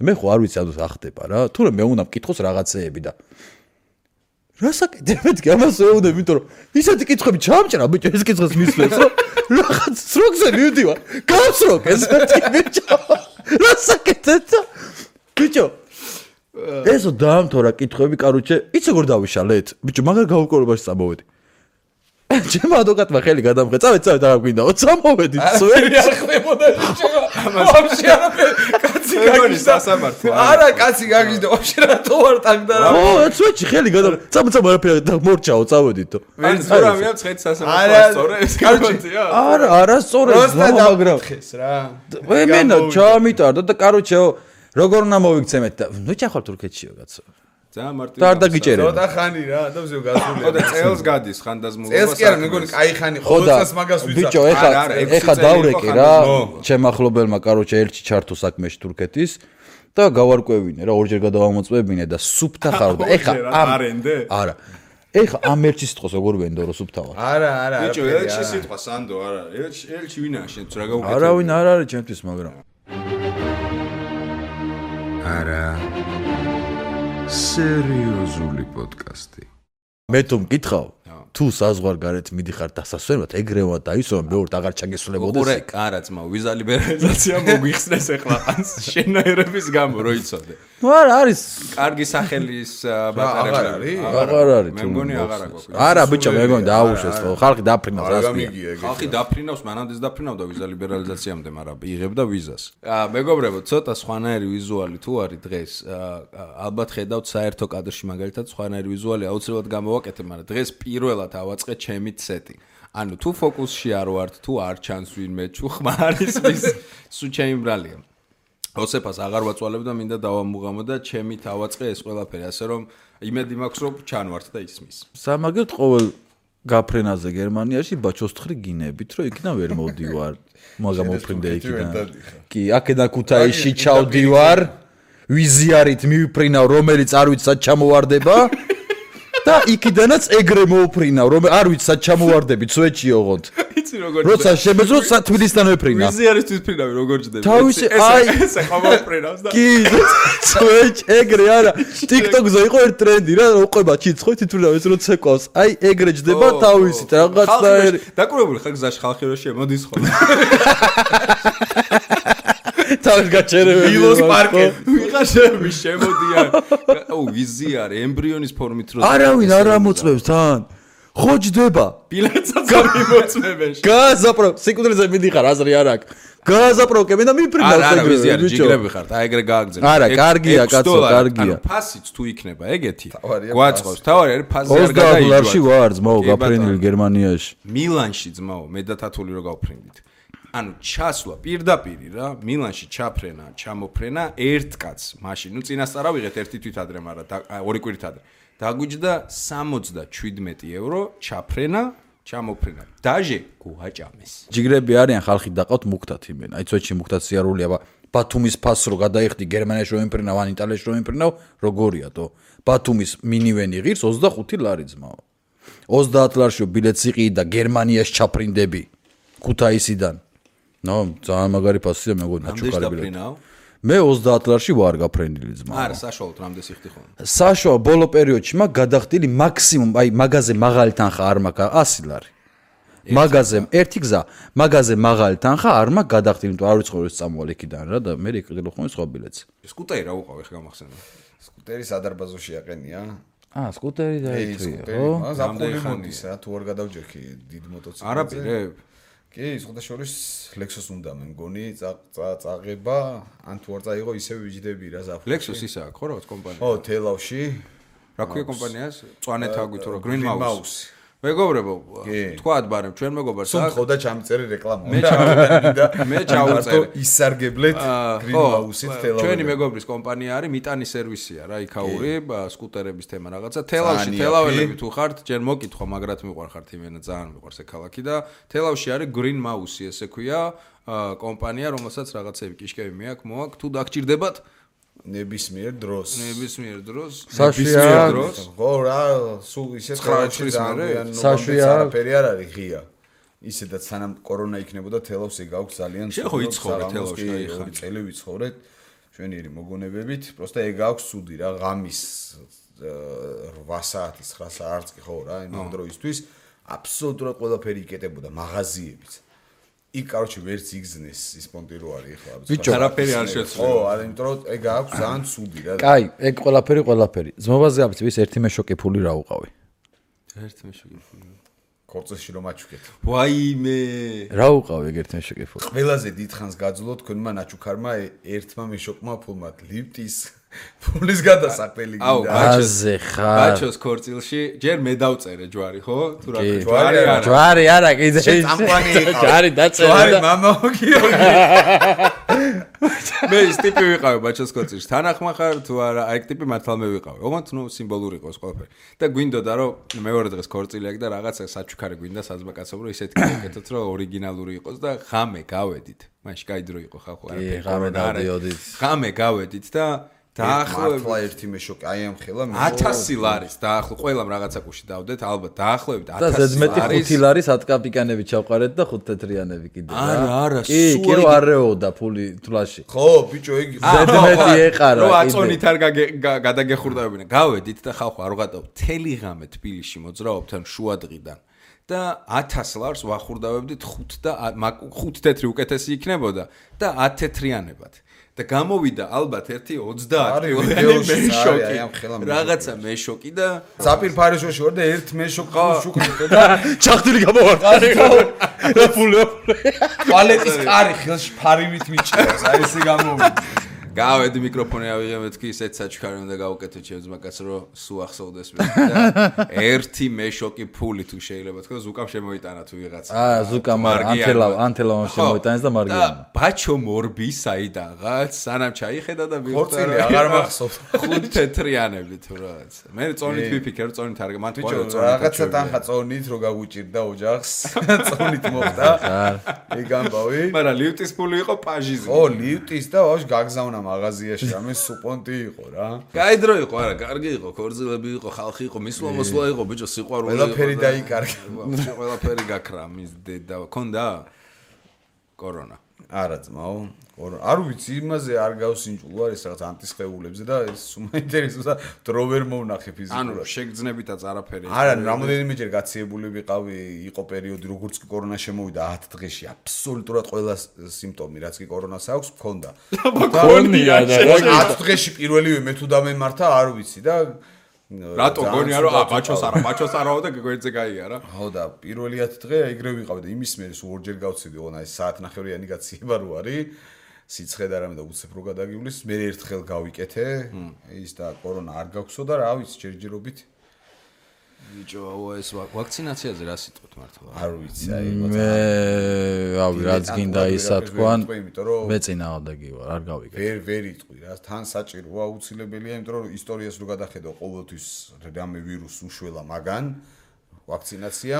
S2: მე ხო არ ვიცი ადოს ახდება რა თურმე მე უნდა მკითხოს რაღაცეები და რასაკეთებ მეთქი ამას ეუნებ იმიტომ რომ ისეთი კითხვები ჩამჭრა ბიჭო ეს კითხვის მისვლებს რომ რაღაც სროგზე მივდივარ გავსროგ ეს მეთქი ბიჭო რასაკეთებ ბიჭო ესო დაამთორა კითხვები კაროჩე იცი როგორ დავიშალეთ ბიჭო მაგარ გაუკვირვებაში წამოვედი ჩემ ადვოკატმა ხელი გადამღე წავედ რა გვინდაო წამოვედი სვერი
S3: არ ხდებოდა ვაფშე არაფერი კაცი გაგიზდა
S1: სასამართლო
S3: არა კაცი გაგიზდა ვაფშე რატო არ ტაგდა რა
S2: ო ეცვეჩი ხელი გადამღე წამო არაფერი მორჩაო წავედით
S1: ვინც გურამია მცხეთის სასამართლო სწორე ეს კაცია
S2: არა სწორე მაგრამ
S3: ხეს რა
S2: მენა ჩამიტარდა და კაროჩეო როგორ უნდა მოვიქცემეთ და ნუ ჩახვალ თურქეთშიო კაცო
S1: ძალიან მარტივი
S2: და არ დაგიჭერე
S3: ცოტა ხანი რა და ვზევ გასული
S1: ხო და წელს გადის ხანდაზმულობა
S3: წელს კი არა მეგონი კაი ხანი ყოველწელს მაგას ვიცა
S2: ბიჭო ეხა დავრეკე რა ჩემ ახლობელმა კაროჩე ერთში ჩართო საქმეში თურქეთის და გავარკვევინე რა ორჯერ გადავამოწმებინე და სუფთა ხარ და ეხა
S1: არენდე
S2: არა ეხა ამ ერთში სიტყვას როგორ ვენდო რომ სუფთა ვარ
S3: არა
S1: ბიჭო ელჩი სიტყვა სანდო არა ელჩი ვინაა შენ რა გაუკეთე
S2: არავინ არ არის ჩემთვის მაგრამ
S4: არა სერიოზული პოდკასტი
S2: მე თუ მკითხავ თუ საზღვარგარეთ მიდიხარ დასასვენად ეგრევა დაისვა მეორე აღარ ჩაგესულებოდეს
S1: უყურე არა ძმა ვიზა ლიბერალიზაცია მოგვიხსნეს ეხლა ანს შენაერების გამო რო იცოდე
S2: ნუ არა არის
S1: კარგი სახელის ბატონები
S2: აღარ არის
S1: მე მგონი აღარ აქვს
S2: არა ბიჭო მე მგონი დააუშვეს ხო ხალხი დაფრინავს
S3: გამიგია ეგ
S1: ხალხი დაფრინავს მანამდეც დაფრინავდა ვიზა ლიბერალიზაციამდე მაგრამ იღებდა ვიზას მეგობრებო ცოტა სხვანაირი ვიზუალი თუ არის დღეს ალბათ ხედავთ საერთო კადრში მაგალითად სხვანაირი ვიზუალი აუცილებლად გამოვაკეთებ მაგრამ დღეს პირველად ავაწყე ჩემი სეტი ანუ თუ ფოკუსში არ ვართ თუ არ ჩანს ვინმე თუ ხმარის ვის სუ ჩემი ბრალია ოსეფას აღარ ვაწვალებ და მინდა დავამუღამო და ჩემით ავაწყე ეს ყველაფერი ასე რომ იმედი მაქვს რომ ჩანვართ და ისმის
S2: სამაგერთ ყოველ გაფრენაზე გერმანიაში ბაჩოსთხრი გინებით რომ იქიდან ვერ მოვდივარ მაგა მოფრინდე იქიდან კი აქედან ქუთაისში ჩავდივარ ვიზიარით მივფრინავ რომელიც არ ვიცი სად ჩამოვარდება და იქიდანაც ეგრე მოვფრინავ რომ არ ვიცი სად ჩამოვარდებით სვეჩი ოღონდ
S1: იცი როგორ
S2: როცა შემეძრო თბილისთან ვეფრინა
S1: ვიზიარის თვითფრინავი როგორ ჯდები
S2: თავისი აი
S1: ესე ხომოფრინავს და
S2: კი სვეჩ ეგრე არა TikTok-ზე იყო ერთ ტრენდი რა უყვება ჩიცხო თვითფრინავ ეს რო ცეკვავს აი ეგრე ჯდება თავისით რაღაცნაირი
S1: დაკურებული ხარ გზაში ხალხი რო შემოდის ხო
S2: თავის გაჩერებული
S3: ვილოს პარკი
S1: ვიღაშები შემოდიან ო ვიზიარი ემბრიონის ფორმით რო
S2: არავინ არ ამოწმებს თან ხო ჯდება
S1: ბილეთსაც გამიმოწმებენ
S2: გაზაპრო სიკვდილზე მიდიხარ აზრი არ აქვს გაზაპროკებენ და მიფრინავს
S1: არა ვიზიარი ჯიგრები ხართ აი ეგრე გააგზავნე
S2: არა კარგია კაცო კარგია
S1: ანუ ფასიც თუ იქნება ეგეთი გვაწყობს თავარი არის ფასი არ
S2: გადაიჯვა $20 ვარ ძმაო გაფრენდილი გერმანიაში
S1: მილანში ძმაო მე და თათული რო გავფრენდით ანუ ჩასვლა პირდაპირი რა მილანში ჩაფრენა ჩამოფრენა ერთ კაცს მაშინ ნუ წინასწარ ავიღეთ ერთი თვით ადრე მაგრამ ორი კვირით ადრე დაგვიჯდა €77 ჩაფრენა ჩამოფრენა დაჟე გუაჭამეს
S2: ჯიგრები არიან ხალხი დაყავთ მუქთათ იმენ აი ცოტში მუქთათ სიარული აბა ბათუმის ფასს რო გადაიხდი გერმანიაში რო იმფრინავ ან იტალიაში რო იმფრინავ როგორია თო ბათუმის მინივენი ღირს $25 ძმაო 30 ლარშიო ბილეთს იყიდი და გერმანიაში ჩაფრინდები ქუთაისიდან ნო ძალიან მაგარი ფასია მეგონა ნაჩუქარი ბილეთი მე 30 ლარში ვარ გაფრენდილი ძმა
S1: არა საშუალოდ რამდენს იხდი ხოლმე
S2: საშუალო ბოლო პერიოდში მაგ გადახდილი მაქსიმუმ აი მაღაზე მაღალი თანხა არ მაქვს 100 ლარი მაღაზე ერთი გზა მაღაზე მაღალი თანხა არ მაქვს გადახდილი იმიტომ არ ვიცხოვ ეს წამოვალ იქიდან რა და მე იყიდე ხოლმე სხვა ბილეთს
S1: სკუტერი რა უყავ ეხა გამახსენე
S3: სკუტერი სადარბაზოში აყენია
S2: სკუტერი დაიწვია ხო
S3: ზაფხული მოდის რა თუ არ გადავჯექი დიდ მოტოციკლზე
S1: არაპირებ
S3: კი, სხვათა შორის Lexus უნდა მე მგონი წაღება, ან თუ არ წაიღო ისევ ვიჯდები რა ზაფხულში.
S1: Lexus ისა აქვს ხო რაღაც კომპანია?
S3: ო, თელავში.
S1: რა ქვია კომპანიას? წვანეთ აგვით რა Green Mouse. მეგობრებო, თქვათ ბარემ ჩვენ მეგობარს
S3: აქვს. ხო და ჩამწერი რეკლამა.
S1: მე ჩავუწერ.
S3: ისარგებლეთ Green Mouse-ით თელავში.
S1: ჩვენი მეგობრის კომპანია არის მიტანი სერვისია რა, იქაური სკუტერების თემა რაღაცა. თელავში თელაველები თუ ხართ, ჯერ მოკითხვა, მაგრად მიყვარხართ იმენა, ძალიან მიყვარს ეს ქალაქი და თელავში არის Green Mouse, ესე ქვია, კომპანია, რომელსაც რაღაცები კიშკები მეაქვს, მოაქვს, თუ დაგჭირდებათ ნებისმიერ დროს. ხო რა, სულ ისე
S3: ხარჯი ძალიან ფერი არ არის ღია. ისედაც სანამ კორონა იქნებოდა თელავში გაქვს ძალიან
S1: შეხო იცხოვრე თელავში
S3: ორი წელი ვიცხოვრეთ ჩვენიერი მოგონებებით, პროსტა ეგ აქვს სუდი რა, ღამის 8 საათის 9 საათს კი ხო რა, იმ დროისთვის აბსოლუტურად ყველაფერი იკეტებოდა მაღაზიებიც. იქ კაროჩი ვერც იგზნეს ის პონტი რო არის ხო
S1: ბიჭო არაფერი არ შეცვლა
S3: ხო არა იმიტომ რომ ეგ აქვს ძალიან ცუდი რა
S2: კაი ეგ ყველაფერი ზმობაზე აბიცი ვის ერთი მეშოკი ფული რა უყავი
S1: ერთი მეშოკი ფული
S3: კორწეში რომ აჩუქეთ
S1: ვაიმე
S2: რა უყავი ეგ ერთი მეშოკი ფული
S3: ყველაზე დიდხანს გაძლო თქვენმა ნაჩუქარმა ერთმა მეშოკმა ფულმა ლიფტის ფულის გადასაყრელი
S2: გინდა აზე ხარ
S1: ბაჩოს ქორწილში ჯერ მე დავწერე ჯვარი ხო თუ რა
S2: ჯვარი არა კიდე ჯვარი დაწერე
S3: ჯვარი მამაო გიორგი
S1: მე ის ტიპი ვიყავი ბაჩოს ქორწილში თანახმა ხარ თუ არა აი ტიპი მართლა მე ვიყავი ოღონდ ნუ სიმბოლური იყოს ყველაფერი და გვინდოდა რომ მეორე დღეს ქორწილი აქვს და რაღაცა საჩუქარი გვინდა საზბაკაცობრო ისეთი გაკეთოთ რომ ორიგინალური იყოს და ღამე გავედით მაშინ კაი დრო იყო ხალხო
S2: არაფერი
S1: ღამე გავედით და
S3: დაახლოებით ერთი მეშოკი აი ამ ხელა
S1: 1000 ლარის დაახლოებით ყველამ რაღაცა კუში დავდეთ ალბათ დაახლოებით 1000
S2: ლარის და ზედმეტი 5 ლარის 10 კაპიკანები ჩავყარეთ და 5 თეთრიანები კიდე
S1: არა
S2: კი რო არეოდა ფული თლაში
S3: ხო ბიჭო იგი
S2: ზედმეტი ეყარა
S1: რო აწონით არ გადაგეხურდავებინა გავედით და ხალხო არ ვღატავ თელი ღამე თბილისში მოძრაობთ ან შუადღიდან და 1000 ლარს ვახურდავებდით 5 და 5 თეთრი უკეთესი იქნებოდა და 10 თეთრიანებად და გამოვიდა ალბათ ერთი 30 მეშოკი რაღაცა მეშოკი და
S3: ზაფირ ფარიშოში ვარ და ერთ მეშოკი შუქნით და
S2: ჩახტილი გამოვარტყარი და ფული
S3: ტუალეტის კარი ხელში ფარივით მიჭირავს აი ესე გამოვიდა
S1: გავედი მიკროფონი ავიღე მეთქი ისეთ საჩქარი უნდა გავუკეთო ჩემს მაგას რომ სუ ახსოვდეს მე და ერთი მეშოკი ფული თუ შეიძლება თქო ზუკამ შემოიტანა თუ ვიღაცა
S2: ზუკამ ანთელავ შემოიტანეს და მარგიანო
S1: და ბაჩო მორბი საიდაღაც სანამ ჩაიხედა და
S3: ხორცილი აღარ მახსოვს
S1: 5 თეთრიანები თუ რაღაც მე წონით ვიფიქრე წონით არ მან
S3: ბიჭო რაღაცა თანხა წონით რო გაგვიჭირდა ოჯახს წონით მოხდა ეგ ამბავი
S1: მაგრამ ლიფტის ფული იყო პაჟიზე
S3: ო ლიფტის და ვაშ გაგზავნა მაღაზიაში რამე სუპონტი იყო რა.
S1: კაი დრო იყო, არა, კარგი იყო, ქორწილები იყო, ხალხი იყო, მისვლა იყო, ბიჭო, სიყვარული იყო.
S3: ყველაფერი დაიკარგა.
S1: ყველაფერი გაქრა მის დედა. ქონდა კორონა.
S3: არა ძმაო, კორონა. არ ვიცი, იმაზე არ გავსინჯულო არის რაღაც ანტისხეულებზე და ეს უმაინტერესოა დრო ვერ მოვნახე ფიზიკურად.
S1: ანუ შეგძნებითაც არაფერი.
S3: არა, რამოდენიმეჯერ გაციებული ვიყავი, იყო პერიოდი, როგორც კი კორონა შემოვიდა 10 დღეში, აბსოლუტურად ყველა სიმპტომი, რაც კი კორონას აქვს, მქონდა.
S2: მქონია და
S3: 10 დღეში პირველივე მე თუ დამემართა, არ ვიცი და
S1: რატო გონია რომ ბაჩოს არაო და გვერდზე გაიარა?
S3: ხო და პირველი 10 დღე ეგრე ვიყავი და იმის მერე სულ ორჯერ გავწივდი, ოღონდ აი საათნახევრიანი გაციება რო არის. სიცხე და რამე და უცებ რო გადაგივლის, მე ერთხელ გავიკეთე, ის და კორონა არ გაქვსო და რა ვიცი, ჯერჯერობით.
S1: ბიჭო, ეს ვაქცინაციაზე რა სიტყვით მართლა?
S3: არ ვიცი, აი
S2: მე რავი, რაც გინდა ისა თქვან, მე წინააღმდეგი ვარ, არ გავიკეთე.
S3: ვერ იტყვი რა, თან საჭიროა აუცილებელია, იმიტომ რომ ისტორიას რო გადახედო, ყოველთვის რამე ვირუსი უშველა მაგან. ვაქცინაცია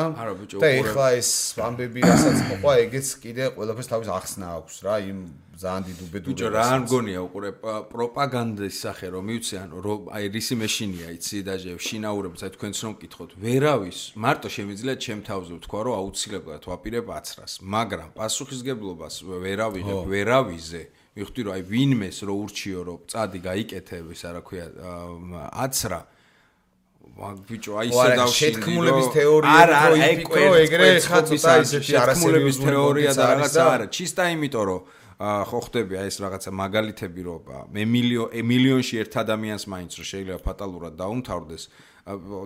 S3: და ეხლა ეს ამბები რასაც მოყვა ეგეც კიდე ყველაფერს თავის ახსნა აქვს რა იმ ძალიან დიდ უბედურებას.
S1: ბიჭო რა არ მგონია უყურე პროპაგანდის სახე რომ მივცი ანუ რომ აი რისი მეშინია იცი დაჟე შინაურებს აი თქვენც რომ მკითხოთ ვერავის მარტო შემიძლია ჩემ თავზე ვთქვა რომ აუცილებლად ვაპირებ აცრას მაგრამ პასუხისგებლობას ვერავიზე მივხვდი რომ აი ვინმეს რო ურჩიო რომ წადი გაიკეთე ის რა ქვია აცრა ბიჭო აი ისე დავშინდი
S3: შეთქმულების თეორია რო იფიქრო ეგრე ხა ცოტა ისეთი
S1: არასერიოზული თეორია და რაღაცა არა ჩისტა იმიტომ რომ ხო ხდები აი ეს რაღაცა მაგალითები რომ მე მილიონში ერთ ადამიანს მაინც რომ შეიძლება ფატალურად დაუმთავრდეს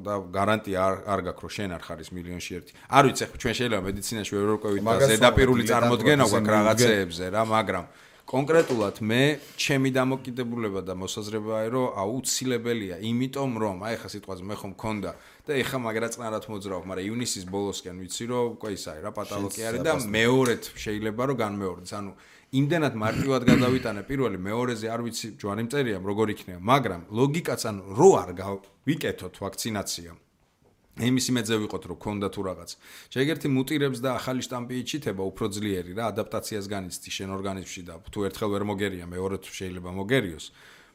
S1: და გარანტია არ გაქვს რომ შენ არ ხარ ის მილიონში ერთი არ ვიცი ხო ჩვენ შეიძლება მედიცინაში ვერ ვერკვევით და ზედაპირული წარმოდგენა გვაქვს რაღაცეებზე რა მაგრამ კონკრეტულად მე ჩემი დამოკიდებულება და მოსაზრებაა რომ აუცილებელია იმიტომ რომ აი ხა სიტყვაზე მე ხომ მქონდა და ეხა მაგრა წნარად მოძრავ მაგრამ ივნისის ბოლოსკენ ვიცი რომ უკვე ის არის რა პატალოგი არის და მეორედ შეიძლება რომ განმეორდეს ანუ იმდენად მარტივად გადავიტანე პირველი მეორეზე არ ვიცი ჯვარი მწერია როგორ იქნება მაგრამ ლოგიკაც ანუ რო არ გავიკეთოთ ვაქცინაცია იმის იმედზე ვიყოთ რომ ქონდა თუ რაღაც. შეეგერთი მუტირებს და ახალი შტამპი იჩითება უფრო ძლიერი რა ადაპტაციას განიცდი შენ ორგანიზმში და თუ ერთხელ ვერ მოგერია მეორე თუ შეიძლება მოგერიოს.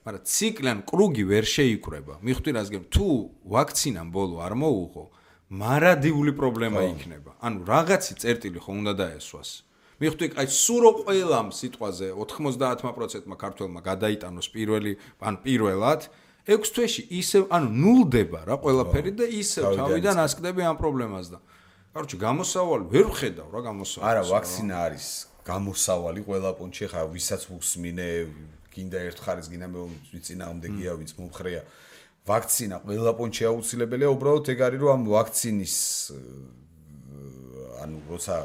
S1: მაგრამ ციკლენ კრუგი ვერ შეიკრება. მივხვდი რას გემ თუ ვაქცინამ ბოლო არ მოუღო, მარადიული პრობლემა იქნება. ანუ რაღაცი წერტილი ხო უნდა დაესვას. მივხვდი აი სურო ყველამ სიტყვაზე 90%-მა ქართველმა გადაიტანოს პირველად 6 თვეში ისევ ანუ ნულდება რა ყველაფერი და ისევ თავიდან ასკდები ამ პრობლემას და კაროჩე გამოსავალი ვერ ვხედავ რა გამოსავალი
S3: არა ვაქცინა არის გამოსავალი ყველა პონჩი ხა ვისაც ვუსმინე გინდა ერთ ხარეს გინდა მე ვიწინააღმდეგია ვიც მომხრეა ვაქცინა ყველა პონჩი აუცილებელია უბრალოდ ეგ არის რომ ამ ვაქცინის ანუ როცა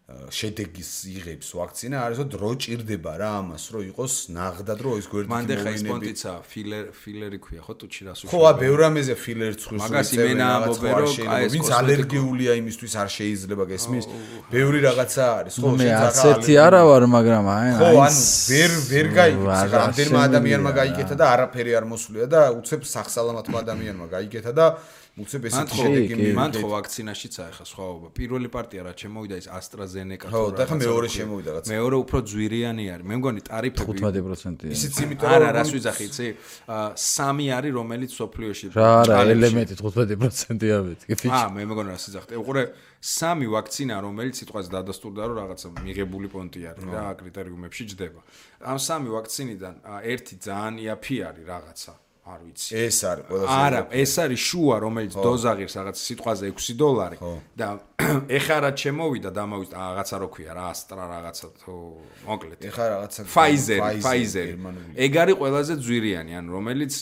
S3: შედეგის იღებს ვაქცინა არის რომ დრო ჭირდება რა ამას რომ იყოს ნაღდად რომ ის გვერდით
S1: მანდ ხა ის პონტიცა ფილერი ქვია ხო თუ ჩირას
S3: ხო ბევრ ამაზე ფილერს ხვისს
S1: მაგას იმენა ამბობენ რომ აი
S3: ვინც ალერგიულია იმისთვის არ შეიძლება გესმის ბევრი რაღაცა არის ხო
S2: შენ ასეთი არა ვარ მაგრამ აი
S3: ხო ანუ ვერ გაიგებს რამდენმა ადამიანმა გაიგეთა და არაფერი არ მოსვლია და უცებ სახსალამათმა ადამიანმა გაიგეთა და უცებ ესეთი შედეგი
S1: მან ხო ვაქცინაშიც აიხა სხვაობა პირველი პარტია რა შემოვიდა ის AstraZeneca
S3: ხო და ხა მეორე შემოვიდა რაც
S1: მეორე უფრო ძვირიანი არის მე მგონი ტარიფები
S2: 15%-ია
S3: ისიც იმიტომ რომ
S1: არა რას ვიძახი იცი 3 არის რომელიც სოფლიოში
S2: რა არა ელემენტი 15%-ია მეთქი
S1: მე მგონი რას ვიძახი უყურე 3 ვაქცინა რომელიც სიტყვაზე დადასტურდა რომ რაღაცა მიღებული პონტი არის რა კრიტერიუმებში ჯდება ამ 3 ვაქცინიდან ერთი ძალიან იაფი არის რაღაცა არ ვიცი.
S3: ეს არის ყველაზე
S1: არა, ეს არის შუა, რომელიც დოზაღირს რაღაც სიტყვაზე $6 და ეხა რაც შემოვიდა და ამავით რაღაცა რო ქვია რა, Astra რაღაცა თუ მოკლედ.
S3: ეხა რაღაცა
S1: Pfizer. ეგ არის ყველაზე ძვირიანი, ანუ რომელიც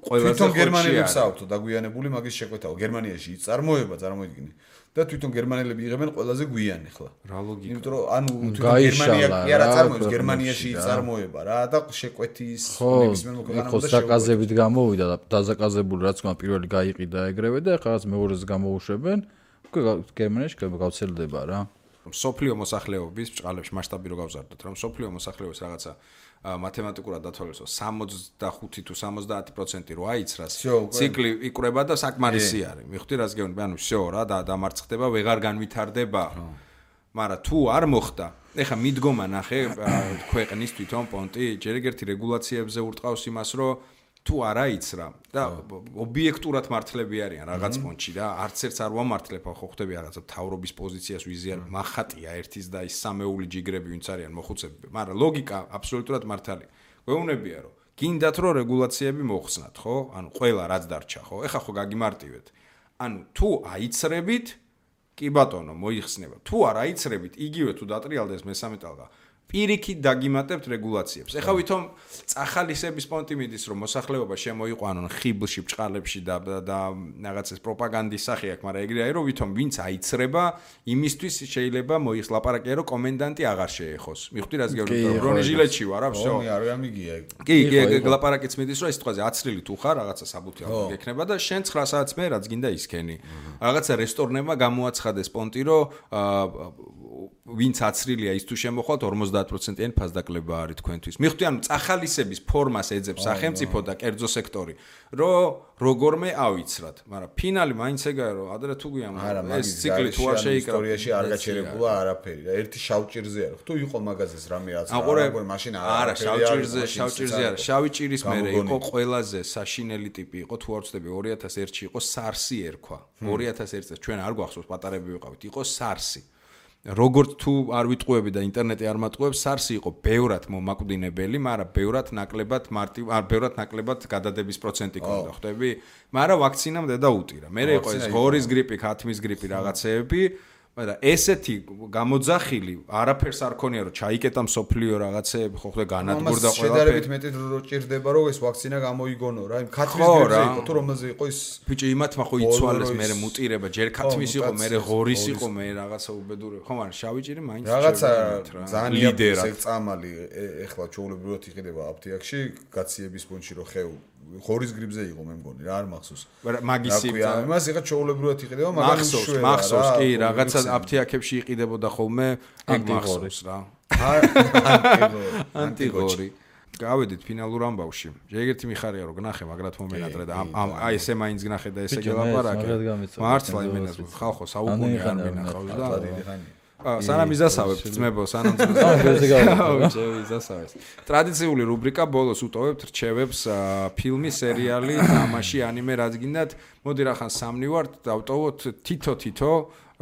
S1: ყველაზე
S3: თვითონ გერმანელებს აქვთ დაგვიანებული მაგის შეკვეთაო. გერმანიაში წარმოება წარმოიდგინე. და თვითონ გერმანელები იღებენ ყველაზე გვიან ახლა.
S1: რა ლოგიკა.
S3: იმიტომ რომ ანუ თვითონ გერმანია კი არა წარმოებს, გერმანიაში წარმოება რა და შეკვეთის ნებისმიერ მოქალაქეებს
S2: და საკაზებით გამოვიდა და დაზაკაზებული რაც გმა პირველი გაიყიდა ეგრევე და ახლა რაც მეორეზე გამოუშვებენ, უკვე გერმანიაში გავრცელდება რა.
S1: სოფლიო მოსახლეობის ბჭყალებში მასშტაბი რო გავზარდოთ, რომ სოფლიო მოსახლეობის რაღაცა მათემატიკურად დათვალიეროს 65 თუ 70% რო აიცრას, ციკლი იკვრება და საკმარისი არის. მივხვდი რას გეუბნები, ანუ всё რა და დამარცხდება, ვეღარ განვითარდება. მაგრამ თუ არ მოხდა, ეხა მიდგომა ნახე ქვეყნის თვითონ პონტი, ჯერ ერთი რეგულაციებზე ურტყავს იმას, რომ თუ არ აიცრა და ობიექტურად მართლები არიან რაღაც პონჩი და არც ერთს არ ვამართლებ ხო ხდები რაღაცა თავრობის პოზიციას ვიზიარ მახატია ერთის და ის სამეული ჯიგრები ვინც არიან მოხუცები მაგრამ ლოგიკა აბსოლუტურად მართალია გვეუბნებია რომ გინდათ რომ რეგულაციები მოხსნათ ხო ანუ ყველა რაც დარჩა ხო ეხა ხო გაგიმარტივეთ ანუ თუ აიცრებით კი ბატონო მოიხსნება თუ არ აიცრებით იგივე თუ დატრიალდეს მესამე ტალღა პირიქით დაგიმატებთ რეგულაციებს. ეხლა ვითომ წახალისების პონტი მიდის, რომ მოსახლეობა შემოიყვანონ ხიბლში, ბჭყალებში და რაღაც ეს პროპაგანდის სახე აქვს, მაგრამ ეგრე არის, რომ ვითომ ვინც აიცრება, იმისთვის შეიძლება მოიხლაპარაკია, რომ კომენდანტი აღარ შეეხოს. მიხვდი რას გეუბნები? ბრონეჟილეთში ვარ, რა всё.
S3: არ გამიგია.
S1: კი, ლაპარაკიც მიდის, რომ ეს სიტყვაზე აცრილი თუ ხარ, რაღაცა საბუთი ალბათ გექნება და შენ 9 საათს მე რაც გინდა ისქენი. რაღაცა რესტორნებმა გამოაცხადეს პონტი, რომ ვინც აცრილია ის თუ შემოხვალთ 50%-იანი ფასდაკლება არის თქვენთვის. მიხვდი, ანუ წახალისების ფორმას ეძებს სახელმწიფო და კერძო სექტორი, რომ როგორმე ავიცრათ, მაგრამ ფინალი მაინც ეგაა, რომ ადრე თუ გვიან ეს ციკლი თუ არ შეიკრა
S3: ისტორიაში არ გაჩერებულა არაფერი და ერთი შავჭირზე არის. თუ იყო მაგაზეს რამე აცრა, მაშინ
S1: არა შავჭირზე არა, შავი ჭირის მერე იყო ყველაზე საშინელი ტიპი იყო, თუ არ ვცდები 2001-ში იყო SARS-ი ერქვა. 2001 წელს ჩვენ არ გვახსოვს პატარები ვიყავით, იყო SARS-ი. როგორც თუ არ ვიტყუები და ინტერნეტი არ მატყუებს, SARS-ი იყო ბევრად მომაკვდინებელი, მაგრამ ბევრად ნაკლებად გადადების პროცენტი ქონდა, ხვდები? მაგრამ ვაქცინამდე და utira. მე იყო ეს ღორის გრიპი, ქათმის გრიპი რაღაცეები, მაგრამ ესეთი გამოძახილი არაფერს არ ქონია, რომ ჩაიკეტა მსოფლიო რაღაცეები, ხო ხდება განადგურდა ყველაფერი.
S3: შედარებით მეტი დრო ჭირდება, რომ ეს ვაქცინა გამოიგონო რა. იმ ქათმის გრიპზე იყო, თუ რომელზე იყო ის
S1: ბიჭი იმათმა ხო იცვალეს, მე მუტირება, ჯერ ქათმის იყო, მე ღორის იყო, მე რაღაცა უბედურება. ხო, მაგრამ შავი ჭირი მაინც
S3: რაღაცა ძალიან ლიდერად წამალი ეხლა ჩაულებრივად იყიდება აფთიაქში, გაციების პუნქტში რომ ხეუ ღორის გრიპზე იყო მე მგონი რა არ მახსოვს.
S1: მაგისი
S3: იმას იღა ჩაულებრივად იყიდება, მაგრამ
S1: მახსოვს კი რაღაცა აფთიაქებში იყიდებოდა ხოლმე, ეგ მახსოვს რა. ანტიღორი. გავედით ფინალურ ამბავში. ეგეთი მიხარია რომ გნახე, მაგრად მომენატრე და აი ესე მაინც გნახე და ესე გელაპარაკე. მართლა იმენა ხალხო საუკუნე არ მინახავს და სანამ იზასავებთ ძმებო, სანამ იზასავებს. ტრადიციული რუბრიკა ბოლოს უტოვებთ რჩევებს ფილმი, სერიალი, თამაში, ანიმე რაც გინდათ. მოდი რახან სამნი ვართ, დავტოვოთ თითო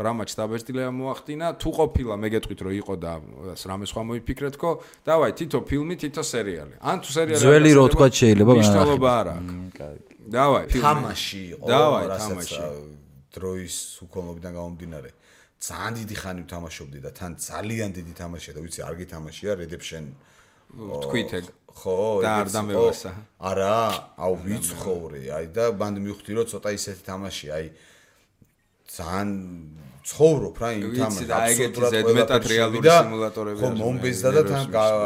S1: რამაც დაბეჭდილება მოახდინა. თუ ყოფილა მე გეტყვით რომ იყო და რამე სხვა მოიფიქრეთქო, დავაი თითო ფილმი, თითო სერიალი. ან თუ სერიალი
S2: ძველი რო თქვა შეიძლება
S1: მნიშვნელობა არ აქვს. დავაი
S3: თამაში იყო,
S1: რასაც
S3: დროის უქონლობიდან გამომდინარე. ძალიან დიდი ხანი ვთამაშობდი და თან ძალიან დიდი თამაშია და ვიცი არ გითამაშია Redemption
S1: თქვით ეგ
S3: ხო
S1: და არ დამევასა
S3: არა აუ ვიცხოვრი აი და ბანდი მივხვდი რომ ცოტა ისეთი თამაში აი ძალიან ცხოვრობ რა იმ თამაში
S1: და ეგეთი ზედმეტად რეალური სიმულატორები
S3: ხო მომბეზდა და თან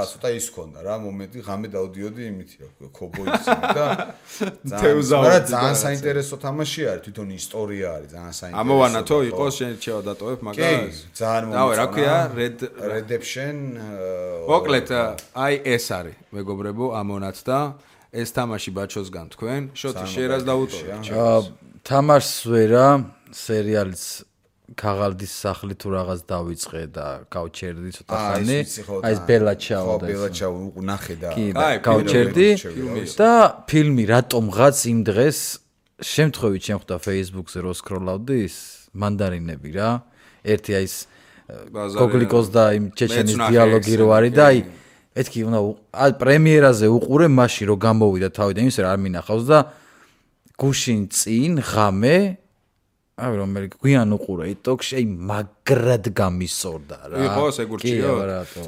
S3: ცოტა ის ქონდა რა მომენტი ღამე დავდიოდი იმითი რა ქობოისი და ძალიან საინტერესო თამაში არის თვითონ ისტორია არის ძალიან საინტერესო
S1: ამოვანათო იყოს შენ შევა დატოვებ მაგას
S3: ძალიან
S1: დავე რა ქვია
S3: Redemption
S1: მოკლედ აი ეს არის მეგობრებო ამონათდა ეს თამაში ბაჩოსგან თქვენ შოთი შერას დაუტოვეთ
S2: თამაშს ვერა სერიალიც ქაღალდის სახლი თუ რაღაც დავიწყე და გავჩერდი ცოტა ხანი აი ეს ბელაჩაო და
S3: ბელაჩაო ნახე და
S2: აი გავჩერდი და ფილმი რატომღაც იმ დღეს შემთხვევით შემხვდა Facebook-ზე რო სკროლავდი ის მანდარინები რა ერთი აი ეს გოგლიკოს და იმ ჩეჩენის დიალოგი რო არის და აი ეთქი უნდა აი პრემიერაზე უყურე მაშინ რო გამოვიდა თავიდან იმის რა არ მინახავს და გუშინ წინ ღამე აი რომელი გვიან უყურე TikTok-ში აი მაგრად გამისორდა რა.
S1: იყოს ეგურჩიო.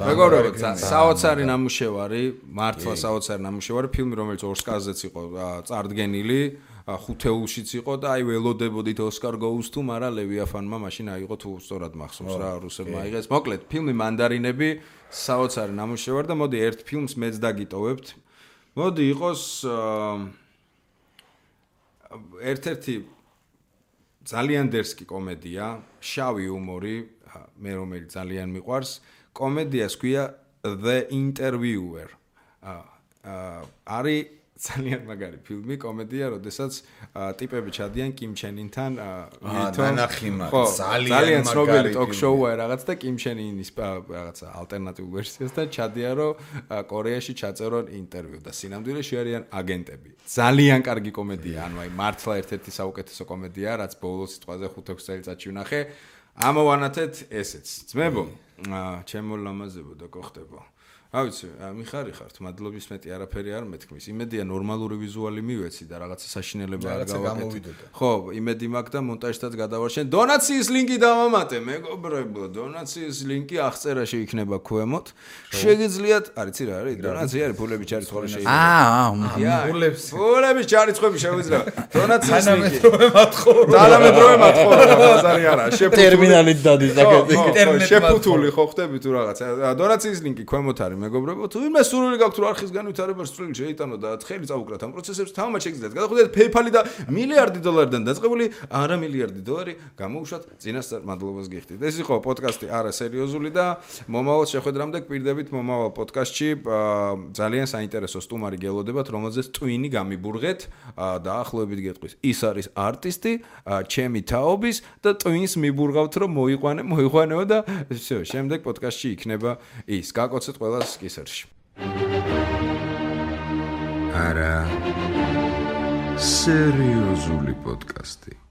S1: მეგობრებო, საოცარი ნამუშევარი, მართლა საოცარი ნამუშევარი, ფილმი რომელიც ოსკარზეც იყო წარდგენილი, ხუთეულშიც იყო და აი ველოდებოდით ოსკარ goes to, მაგრამ ლევიაფანმა მაშინ აიღო თუ სწორად მახსოვს რა რუსებმა აიღეს. მოკლედ, ფილმი მანდარინები საოცარი ნამუშევარი და მოდი ერთ ფილმს მეც დაგიტოვებთ. მოდი იყოს ერთ-ერთი ძალიან დერსკი კომედია, შავი ჰუმორი, მე რომელიც ძალიან მიყვარს. კომედიას ქვია The Interviewer. არის ძალიან მაგარი ფილმი, კომედია, როდესაც ტიპები ჩადიან კიმ ჩენ ინთან, ძალიან ცნობილი ტოკ-შოუა რაღაც და კიმ ჩენ ინის რაღაცა ალტერნატიულ ვერსიას და ჩადიან რომ კორეაში ჩაწერონ ინტერვიუ და სინამდვილეში არიან აგენტები. ძალიან კარგი კომედია, ანუ აი მართლა ერთ-ერთი საუკეთესო კომედია, რაც ბოლოს სიტყვაზე 5-6 წელიწადში ვნახე. ამოვანათეთ ესეც. ძმებო, ჩემო ლამაზებო და გოხდებო. ავიცი, მიხარი ხართ, მადლობის მეტი არაფერი არ მეთქმის. იმედია ნორმალური ვიზუალი მივეცი და რაღაცა საშინელება არ გავაკეთე. ხო, იმედი მაქვს და მონტაჟთაც გადავარშენ. დონაციის ლინკი დავამატე, მეგობრებო, დონაციის ლინკი აღწერაში იქნება ქვემოთ. შეგიძლიათ, არიცი რა არის? დონაცია არის, ფულები ჩარიცხული შეიძლება. ფულების ჩარიცხები შეგვიძლია. დონაციის ლინკი. თანამედროვე მათხოვნა, ბაზარი არა.
S2: ტერმინალით დადის აკეთე.
S1: შეფუთული ხო ხდები თუ რაღაცა. დონაციის ლინკი ქვემოთ არის. მეგობრებო, თუ ვინმე სურვილი გაქვთ რომ არხის განვითარებას სრული შეიტანო და ხელი წაუკრათ ამ პროცესებს, თამამად შეგიძლიათ გადახვიდეთ PayPal-ი და მილიარდი დოლარიდან დაწყებული არა მილიარდი დოლარი გამოუშვათ წინასწარ მადლობას გიხდით. ეს იყო პოდკასტი არა სერიოზული და მომავალ შეხვედრამდე გვპირდებით მომავალ პოდკასტში ძალიან საინტერესო სტუმარი გელოდებათ, რომელზეც ტვინი გამიბურღეთ და ახლობებით გეტყვის. ის არის არტისტი, ჩემი თაობის და ტვინს მიბურღავთ რომ მოიყვანეო და всё, შემდეგ პოდკასტში იქნება ის. გაკოცეთ ყველას კისერში.
S4: არა სერიოზული პოდკასტი.